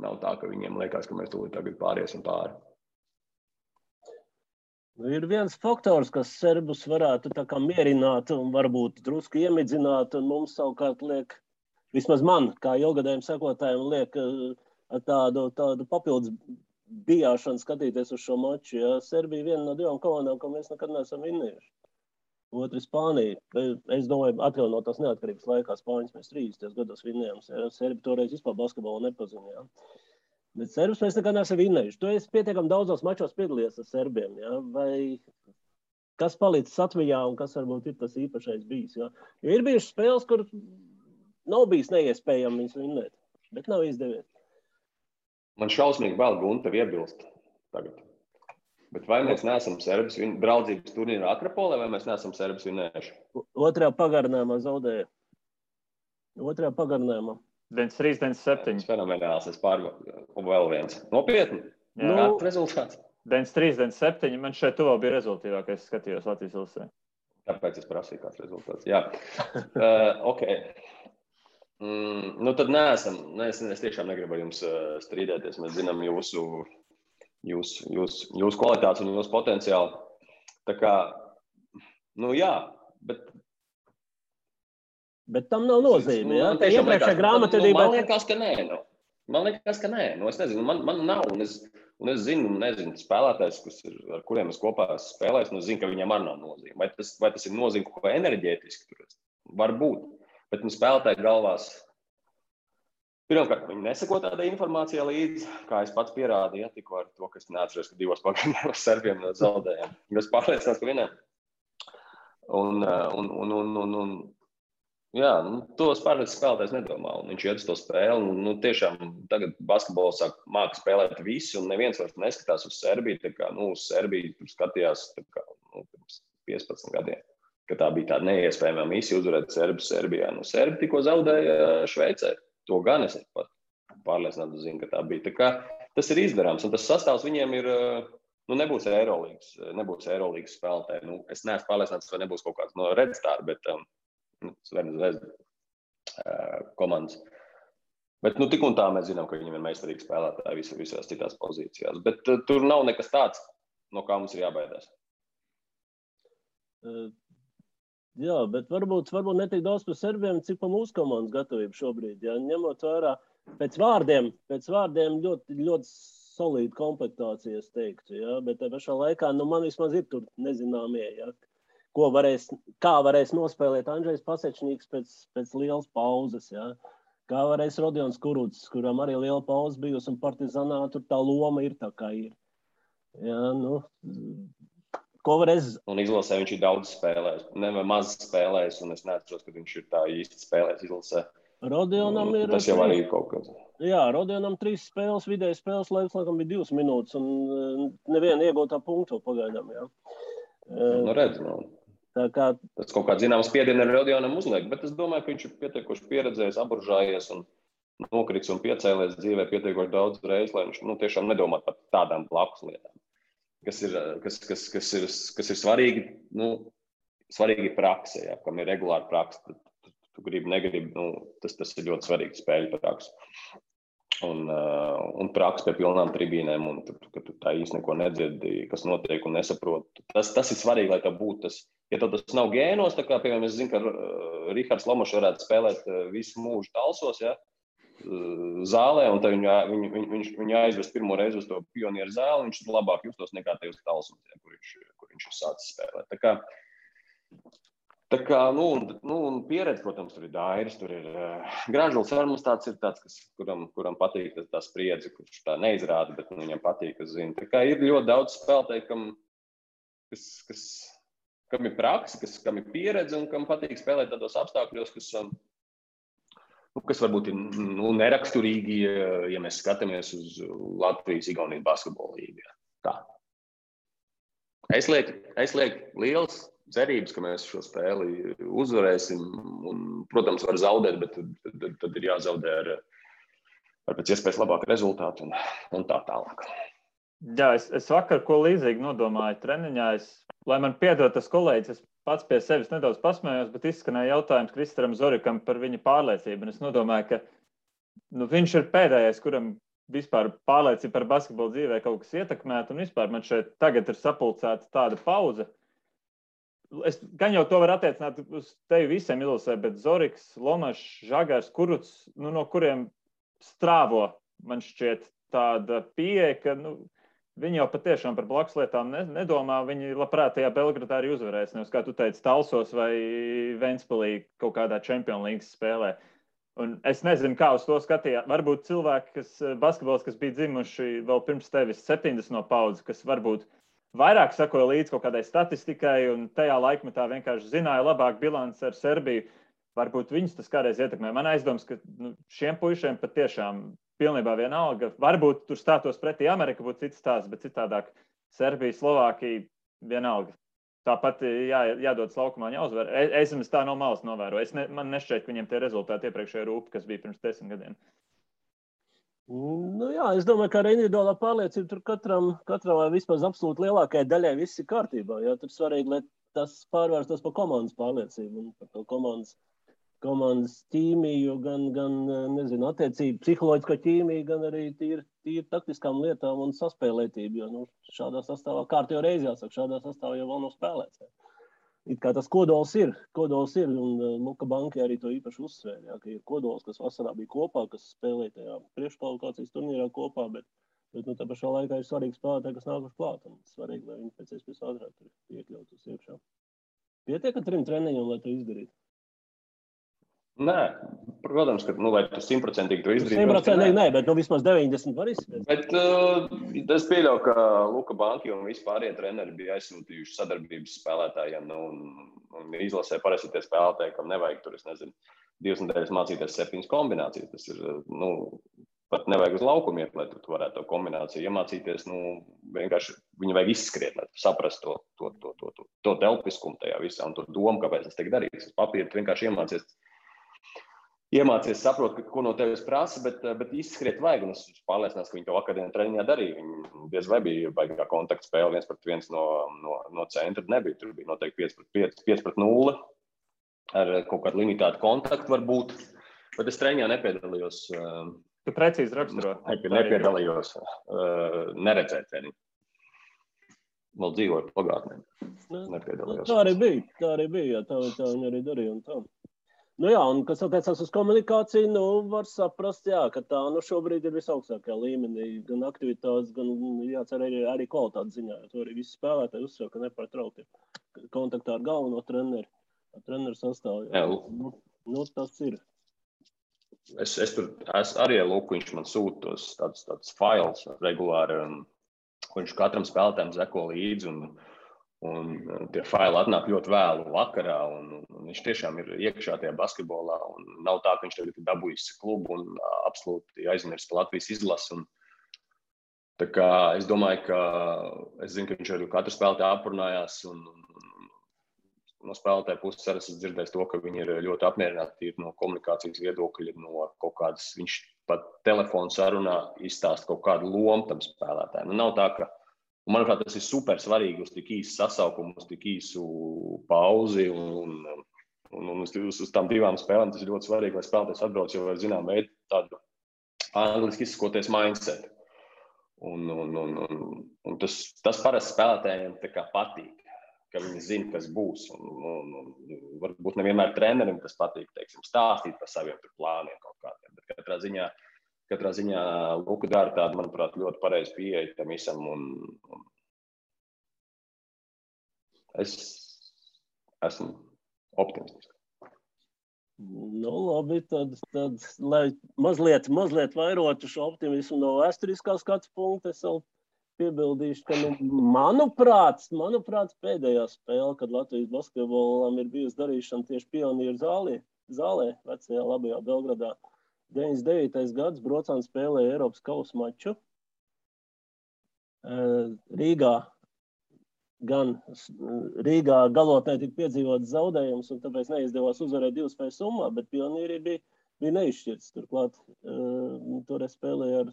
Nav tā, ka viņiem liekas, ka mēs tūlīt tagad pāriesim pāri. Ir viens faktors, kas Serbus varētu tā kā mierināt un varbūt drusku iemidzināt, un mums savukārt liek, vismaz man, kā ilgadējiem sekotājiem, liek tādu papildus bijāšanu skatīties uz šo maču. Ja? Serbija viena no 2 komandām, ko mēs nekad neesam vinnējuši. Otru Spānija. Es domāju, atkal no tās neatkarības laikā Spāņas mēs 30 gados vinnējām. Serbi toreiz vispār basketbolu nepazinājām. Bet Serbus mēs nekad neesam vinnējuši. Tu esi pietiekami daudzos mačos piedalījies ar Serbiem. Ja? Vai kas palicis Latvijā un kas varbūt ir tas īpašais bijis? Ja? Jo ir bijušas spēles, kur nav bijis neiespējami viņus vinnēt, bet nav izdevies. Man šausmīgi vēl Guntev iebilst tagad. Bet vai mēs neesam Serbus draudzības turnīrā Akropolē, vai mēs neesam Serbus vinnējuši? Otrajā pagarinājumā zaudēja. Otrajā pagarinājumā. 93-97. Fenomenāls, es pārbaudu vēl viens. Nopietni? Jā. Kāds rezultāts? 93-97. Man šeit tuvā bija rezultīvākais, es skatījos Latvijas ilsē. Tāpēc es prasīju, kāds rezultāts. Jā. Ok. Tad neesam. Es tiešām negribu jums strīdēties. Mēs zinām jūsu jūsu kvalitātes un jūsu potenciālu. Tā kā, jā, Bet tam nav nozīme, ja? Man tiešām grāmatvedībā... Man liekas, ka nē. Es nezinu, man nav, un es nezinu spēlētājs, ar kuriem es kopā esmu spēlējis, un es zinu, ka viņiem arī nav nozīme. Vai tas ir nozīme kaut ko enerģētiski? Varbūt. Bet spēlētāji galvās, pirmkārt, viņi neseko tādai informācijai līdzi, kā es pats pierādīju, ja, tikko ar to, ka es neatceros, ka 2 pagaidām serbiem zaudējām. Es pārliecinās, ka vienam. To spēlētājs nedomā, un viņš iet uz to spēli. Tiešām tagad basketbolu māca spēlēt visi, un neviens vairs neskatās uz Serbiju. Tā kā, uz Serbiju tur skatījās pirms 15 gadiem, ka tā bija tāda neiespējama misija uzvarēt Serbijā. Serbi tikko zaudēja Šveicē. To gan es pat pārliecināti zinu, ka tā bija. Tā kā tas ir izdarāms, un tas sastāvs viņiem ir, nebūs Eirolīgas spēlētāji. Es neesmu pārliecināts, vai nebūs kaut kāds no Red Star, bet komandas. Bet tik un tā mēs zinām, ka viņiem ir meistarīgi spēlētāji visās citās pozīcijās. Bet tur nav nekas tāds, no kā mums ir jābaidās. Jā, bet varbūt netik daudz par serbiem, cik par mūsu komandas gatavību šobrīd. Ja? Ņemot vērā pēc vārdiem ļoti, ļoti solīda komplektācija, es teiktu. Ja? Bet tā pašā laikā, man vismaz ir tur nezināmie, ja? Kā varēs nospēlēt Andžejs Pasečņīks pēc lielas pauzes. Ja? Kā varēs Rodions Kurucs, kuram arī liela pauze bijusi, un Partizanā tur tā loma ir tā, kā ir. Ja? Un izlasē viņš ir daudz spēlējis, maz spēlējis, un es neatceros, ka viņš ir tā īsti spēlējis izlasē. Rodionam ir... Tas jau arī ir kaut kas. Jā, Rodionam 3 spēles, vidēji spēles laiks, laikam bija 2 minūtes, un neviena iegūtā punktu pagaidām, jā. Redz, Tā kā... Tas kaut kāds zināms spiedienu ar Rodionam uzliek, bet es domāju, ka viņš ir pietiekoši pieredzējis, aburžājies un nokrits un piecēlies dzīvē pietiekoši daudz reizes, lai viņš tiešām nedomā par tādām blakus lietām. Kas ir svarīgi, svarīgi prakse, ja, kam ir regulāra prakse, tu gribi, negribi, tas ir ļoti svarīgi spēļu prakse. Un prakse pie pilnām tribīnēm, un ka tu tā īsti neko nedzirdi, kas notiek un nesaproti. Tas ir svarīgi, lai tā būtu tas. Ja tas nav gēnos, tā kā, piemēram, es zinu, ka Rihards Lomošs varētu spēlēt visu mūžu Talsos, ja, zālē, un tad viņu aizvest pirmo reizi uz to pionieru zāli, viņš labāk justos nekā tajos Talsums, ja, kur viņš ir sācis spēlēt. Tā kā, pieredze, protams, tur ir Dairis, tur ir Gražuls Armas tāds ir tāds, kuram patīk tā spriedze, kurš tā neizrāda, bet viņam patīk, kas zina. Tā kā ir ļoti daudz spēlētāju, kam ir praksa, kam ir pieredze un kam patīk spēlēt tādos apstākļos, kas varbūt ir neraksturīgi, ja mēs skatāmies uz Latvijas-Igaunijas basketbola līgu. Tā. Es lieku liels cerības, ka mēs šo spēli uzvarēsim. Un, protams, var zaudēt, bet tad ir jāzaudē ar pēc iespējas labāku rezultātu un tā tālāk. Jā, es vakar ko līdzīgi nodomāju treniņā. Lai man piedod tas kolēģis, es pats pie sevis nedaudz pasmējos, bet izskanēja jautājums Kristaram Zorikam par viņa pārliecību. Un es nodomāju, ka viņš ir pēdējais, kuram vispār pārliecība par basketbolu dzīvē kaut kas ietekmēt. Un vispār man šeit tagad ir sapulcēta tāda pauze. Es gan jau to var attiecināt uz tevi visiem izlasē, bet Zoriks, Lomašs, Žagars, Kurucs, no kuriem strāvo, man šķiet tāda pieeja, ka viņi jau patiešām par blakus lietām nedomā. Viņi labprāt tajā Belgradā arī uzvarēs. Nevis, kā tu teici, Talsos vai Ventspilī kaut kādā Champions League spēlē. Un es nezinu, kā uz to skatījāt. Varbūt cilvēki, basketbols, kas bija dzimuši vēl pirms tevis 70 no paudzes, kas varbūt vairāk sakoja līdz kaut kādai statistikai un tajā laikmetā vienkārši zināja labāk bilanci ar Serbiju. Varbūt viņus tas kādreiz ietekmē. Man aizdoms, ka šiem puišiem patiešām pilnībā vienalga. Varbūt tur stātos pretī Amerika, būtu cits stāsts, bet citādāk Serbija, Slovākija vienalga. Tāpat jādodas laukumā, jāuzvar. Es tā no malas novēroju. Man nešķiet, ka viņiem tie rezultāti iepriekšējā rūpa, kas bija pirms 10 gadiem. Jā, es domāju, ka ar individuālā pārliecību tur katram vai vispār absolūti lielākajai daļai viss ir kārtībā. Jo tur svarīgi, lai tas pārvērstos par komandas pārliecību un par to komandas ķīmiju, gan nezinu, attiecību, psiholoģisko ķīmiju, gan arī tīri tīri taktiskām lietām un saspēlētību, jo šādā sastāvā, kārtībā reizi jāsaka, šādā sastāvā jau vēl nav spēlēts. It kā tas kodols ir, un Luka Banki arī to īpaši uzsvēra, ka ir kodols, kas vasarā bija kopā, kas spēlēja tajā priekškvalifikācijas turnīrā kopā, bet tā pašā laikā ir svarīgi spēlētāji, kas nākuši klāt, un svarīgi, lai viņi pēc iespējas ātrāk tur iekļautos iekšā. Pietiek ar 3 treniņiem, lai to izdarītu? Nē, protams, ka, lai tu 100% to izdarītu. 100% nē, bet vismaz 90 var izspēt. Bet es pieļauju, ka Luka Banki un vispārie treneri bija aizsūtījuši sadarbības spēlētājiem, un izlasē parasti tie spēlētāji, kam nevajag tur, 2 nedēļas mācīties 7 kombinācijas. Tas ir, pat nevajag uz laukumu iet, lai tu varētu to kombināciju iemācīties. Vienkārši viņu vajag izskriet, lai tu saprastu to telpiskumu tajā visā un to domu, kāpēc tas tiek darīts. Uz papīra tu vienkārši iemācies saprot, ko no tevis prasa, bet izskriet vajag. Un es pārliecinās, ka viņi to vakardien treniņā darīja. Viņi diez vai bija baigā kontaktspēle 1-1 no centra. Nebija. Tur bija noteikti 5-0 ar kaut kādu limitētu kontaktu varbūt. Bet es treniņā nepiedalījos. Tu precīzi raksturo. Nepiedalījos. Neredzēt treniņu. Vēl dzīvoju pagātnē. Nepiedalījos. Tā arī bija. Tā viņi arī darīja un tā. Jā, un kas attiecās uz komunikāciju, var saprast, ka tā šobrīd ir visaugstākajā līmenī. Gan aktivitātes, gan jācer arī kvalitātes ziņā. To arī visi spēlētāji uzsver, ka nepārtraukti kontaktā ar galveno treneri, ar treneru sastāvu. Tas ir. Es arī Luku, viņš man sūta tos tādus failus regulāri, ko viņš katram spēlētājiem zeko līdzi. Un tie faili atnāk ļoti vēlu vakarā, un viņš tiešām ir iekšā tajā basketbolā, un nav tā, ka viņš tagad ir dabūjis klubu un absolūti aizmirst par Latvijas izlasi. Tā kā es domāju, ka es zinu, ka viņš arī katru spēlētāju aprunājās, un no spēlētāja puses arī esmu dzirdējis to, ka viņi ir ļoti apmierināti no komunikācijas viedokļa, no kaut kādas, viņš pat telefonu sarunā izstāst kaut kādu lomu tam spēlētājiem. Nav tā, ka manuprāt, tas ir super svarīgi uz tik īsu sasaukumu, uz tik īsu pauzi un uz tām 2 spēlēm. Tas ir ļoti svarīgi, lai spēlētājs atbrauc jau ar zinām veidu tādu angliski izsakoties mindset. Un tas parasti spēlētājiem tā kā patīk, ka viņi zina, kas būs. Un varbūt nevienmēr trenerim tas patīk, stāstīt par saviem plāniem kaut kādiem. Bet katrā ziņā Luka dara tādu, manuprāt, ļoti pareizi pieeja tam visam. Es esmu optimistisks. Labi, tad lai mazliet vairotu šo optimismu no vēsturiskā skatu punkta, es vēl piebildīšu, ka, manuprāt, pēdējā spēle, kad Latvijas basketbolam ir bijusi darīšana tieši Pionieru zālē, vecajā labajā Belgradā. 99. gads Brocāns spēlēja Eiropas kausa maču. Rīgā galotnē tika piedzīvots zaudējums, un tāpēc neizdevās uzvarēt 2 spēļu summā, bet Pionieri bija neizšķirts. Turklāt toreiz spēlēja ar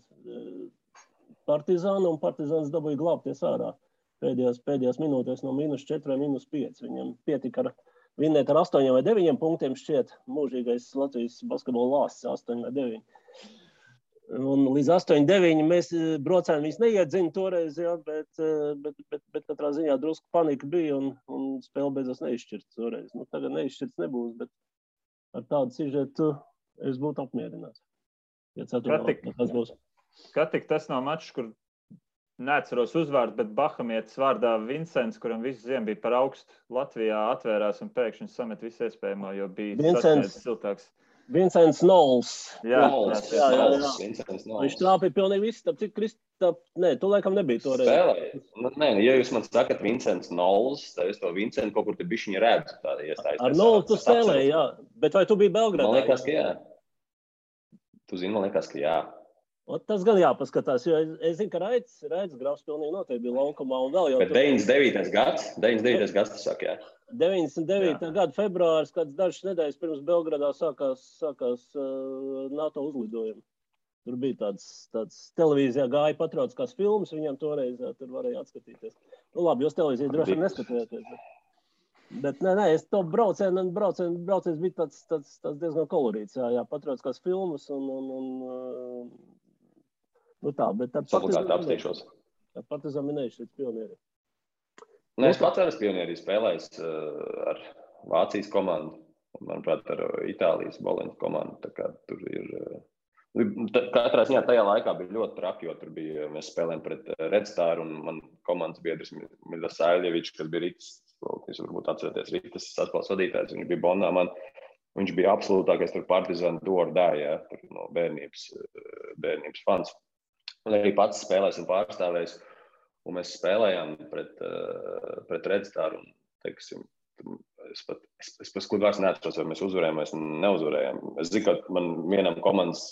Partizānu, un Partizāns dabūja glābties ārā pēdējās minūtēs no -4 vai -5. Viņam pietika ar vinnēt ar 8 vai 9 punktiem šķiet mūžīgais Latvijas basketbola lāsts 8 vai 9. Un līdz 8-9 mēs Brocēni viņus neiedzina toreiz, bet katrā ziņā drusku panika bija un spēle beidzās neizšķirts toreiz. Tagad neizšķirts nebūs, bet ar tādu sižetu es būtu apmierināts. Kā tik tas nav mačs, kur neatceros uzvārdu, bet bahamietis vārdā Vincents, kuram visu ziemu bija par augstu Latvijā, atvērās un pēkšņi samet visu iespējamo, jo bija sasniedzis siltāks. Vincents Nols. Jā. Viņš trāpīja pilnīgi visu. Cik Kristap, tu laikam nebija toreiz. Nē, ja jūs man sakat Vincents Nols, tad es to Vincentu kaut kur te bišķiņa redzu. Ar Nolu tu spēlēji, jā. Bet vai tu biji Belgradā? Man liekas, ka jā. Tu zini, man liekas, ka jā. Tas gan jāpaskatās, jo es zinu, ka Raids Grafs pilnīgi noteikti bija laukumā un vēl jau... Bet 99. gads, tu saki, jā? 99. gada februāris, kāds dažas nedēļas pirms Belgradā sākās NATO uzlidojumi. Tur bija tāds televīzijā gāja patriotiskās filmas, viņam toreiz tur varēja atskatīties. Labi, jūs televīziju droši vien neskatījāties. Bet nē, es to brauciens bija tāds diezgan kolorīts, jā, patriotiskās filmas un Nu tā, bet Obligāti apstīšos. Partizan minējuši līdz pionieri. Nē, es pats arī pionierī spēlējis ar Vācijas komandu, manuprāt, ar Itālijas Boleņas komandu. Tā kā tur ir... Katrā ziņā tajā laikā bija ļoti traki, jo tur bija, mēs spēlējām pret Red Star un man komandas biedrs Miļas Saļevičs, kas bija Rītas, jūs varbūt atceraties Rītas saspēles vadītājs, viņš bija Bonā man, viņš bija absolūtākais tur Partizan dordāja, tur no bērnības fans. Un arī pats spēlējis un pārstāvējis, un mēs spēlējām pret Red Star un, teiksim, es pat skudvārds neatceros, vai mēs uzvarējām, vai neuzvarējām. Es zinu, ka man vienam komandas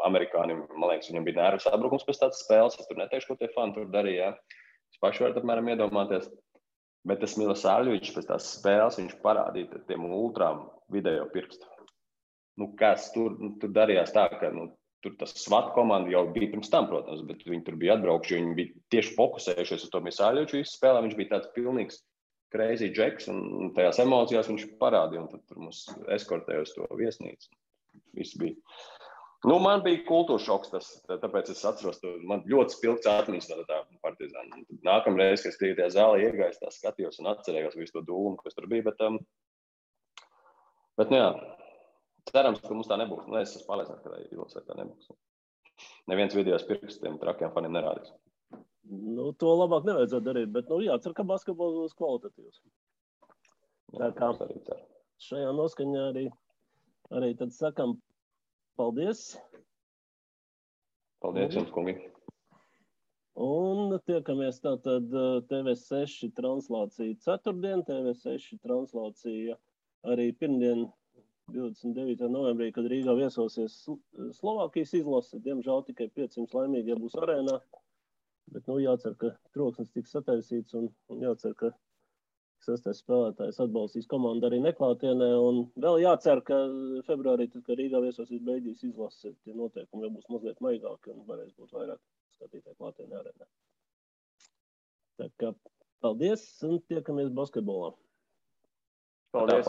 amerikānim, man liekas, viņam bija nervu sabrukums pēc tādas spēles. Es tur neteikšu, ko tie fani tur darīja. Es paši varu apmēram iedomāties. Bet tas Miļas Saļevičs pēc tās spēles, viņš parādīja tiem ultrām video pirkstu. Nu, kas tur darījās tā, ka tur tas SWAT komanda jau bija pirms tam, protams, bet viņi tur bija atbraukši, viņi bija tieši fokusējušies uz to Miļas Saļeviču visu spēlē. Viņš bija tāds pilnīgs crazy džeks, un tajās emocijās viņš parādīja, un tad tur mums eskortēja uz to viesnīcu. Viss bija. Nu, man bija kultūra šoks tas, tāpēc es atceros, man ļoti spilgts atmiņas no tā Partizāna. Nākamreiz, kad es tajā zālē iegājos, tā skatījos un atcerējos visu to dūlumu, kas tur bija, bet jā, cerams, ka mums tā nebūs. Es esmu pārliecināts, ka Ilvasai tā nebūs. Neviens video pirkstiem trakiem faniem nerādīs. Nu, to labāk nevajadzētu darīt, bet, jācer, ka basketbols būs kvalitatīvs. Tā kā šajā noskaņā arī tad sakam paldies. Paldies jums, kungi. Un tiekamies tātad TV6 translācija ceturtdien, TV6 translācija arī pirmdien 29. novembrī, kad Rīgā viesosies Slovākijas izlase. Diemžēl tikai 500 laimīgie būs arēnā. Bet, jācer, ka troksnis tiks sataisīts un jācer, ka sestais spēlētājs atbalstīs komandu arī neklātienē. Un vēl jācer, ka februārī, tad, kad Rīgā viesosies Beļģijas izlase, tie noteikumi jau būs mazliet maigāki un varēs būt vairāk skatītāji klātienē arēnā. Tā kā paldies un tiekamies basketbolā. Paldies.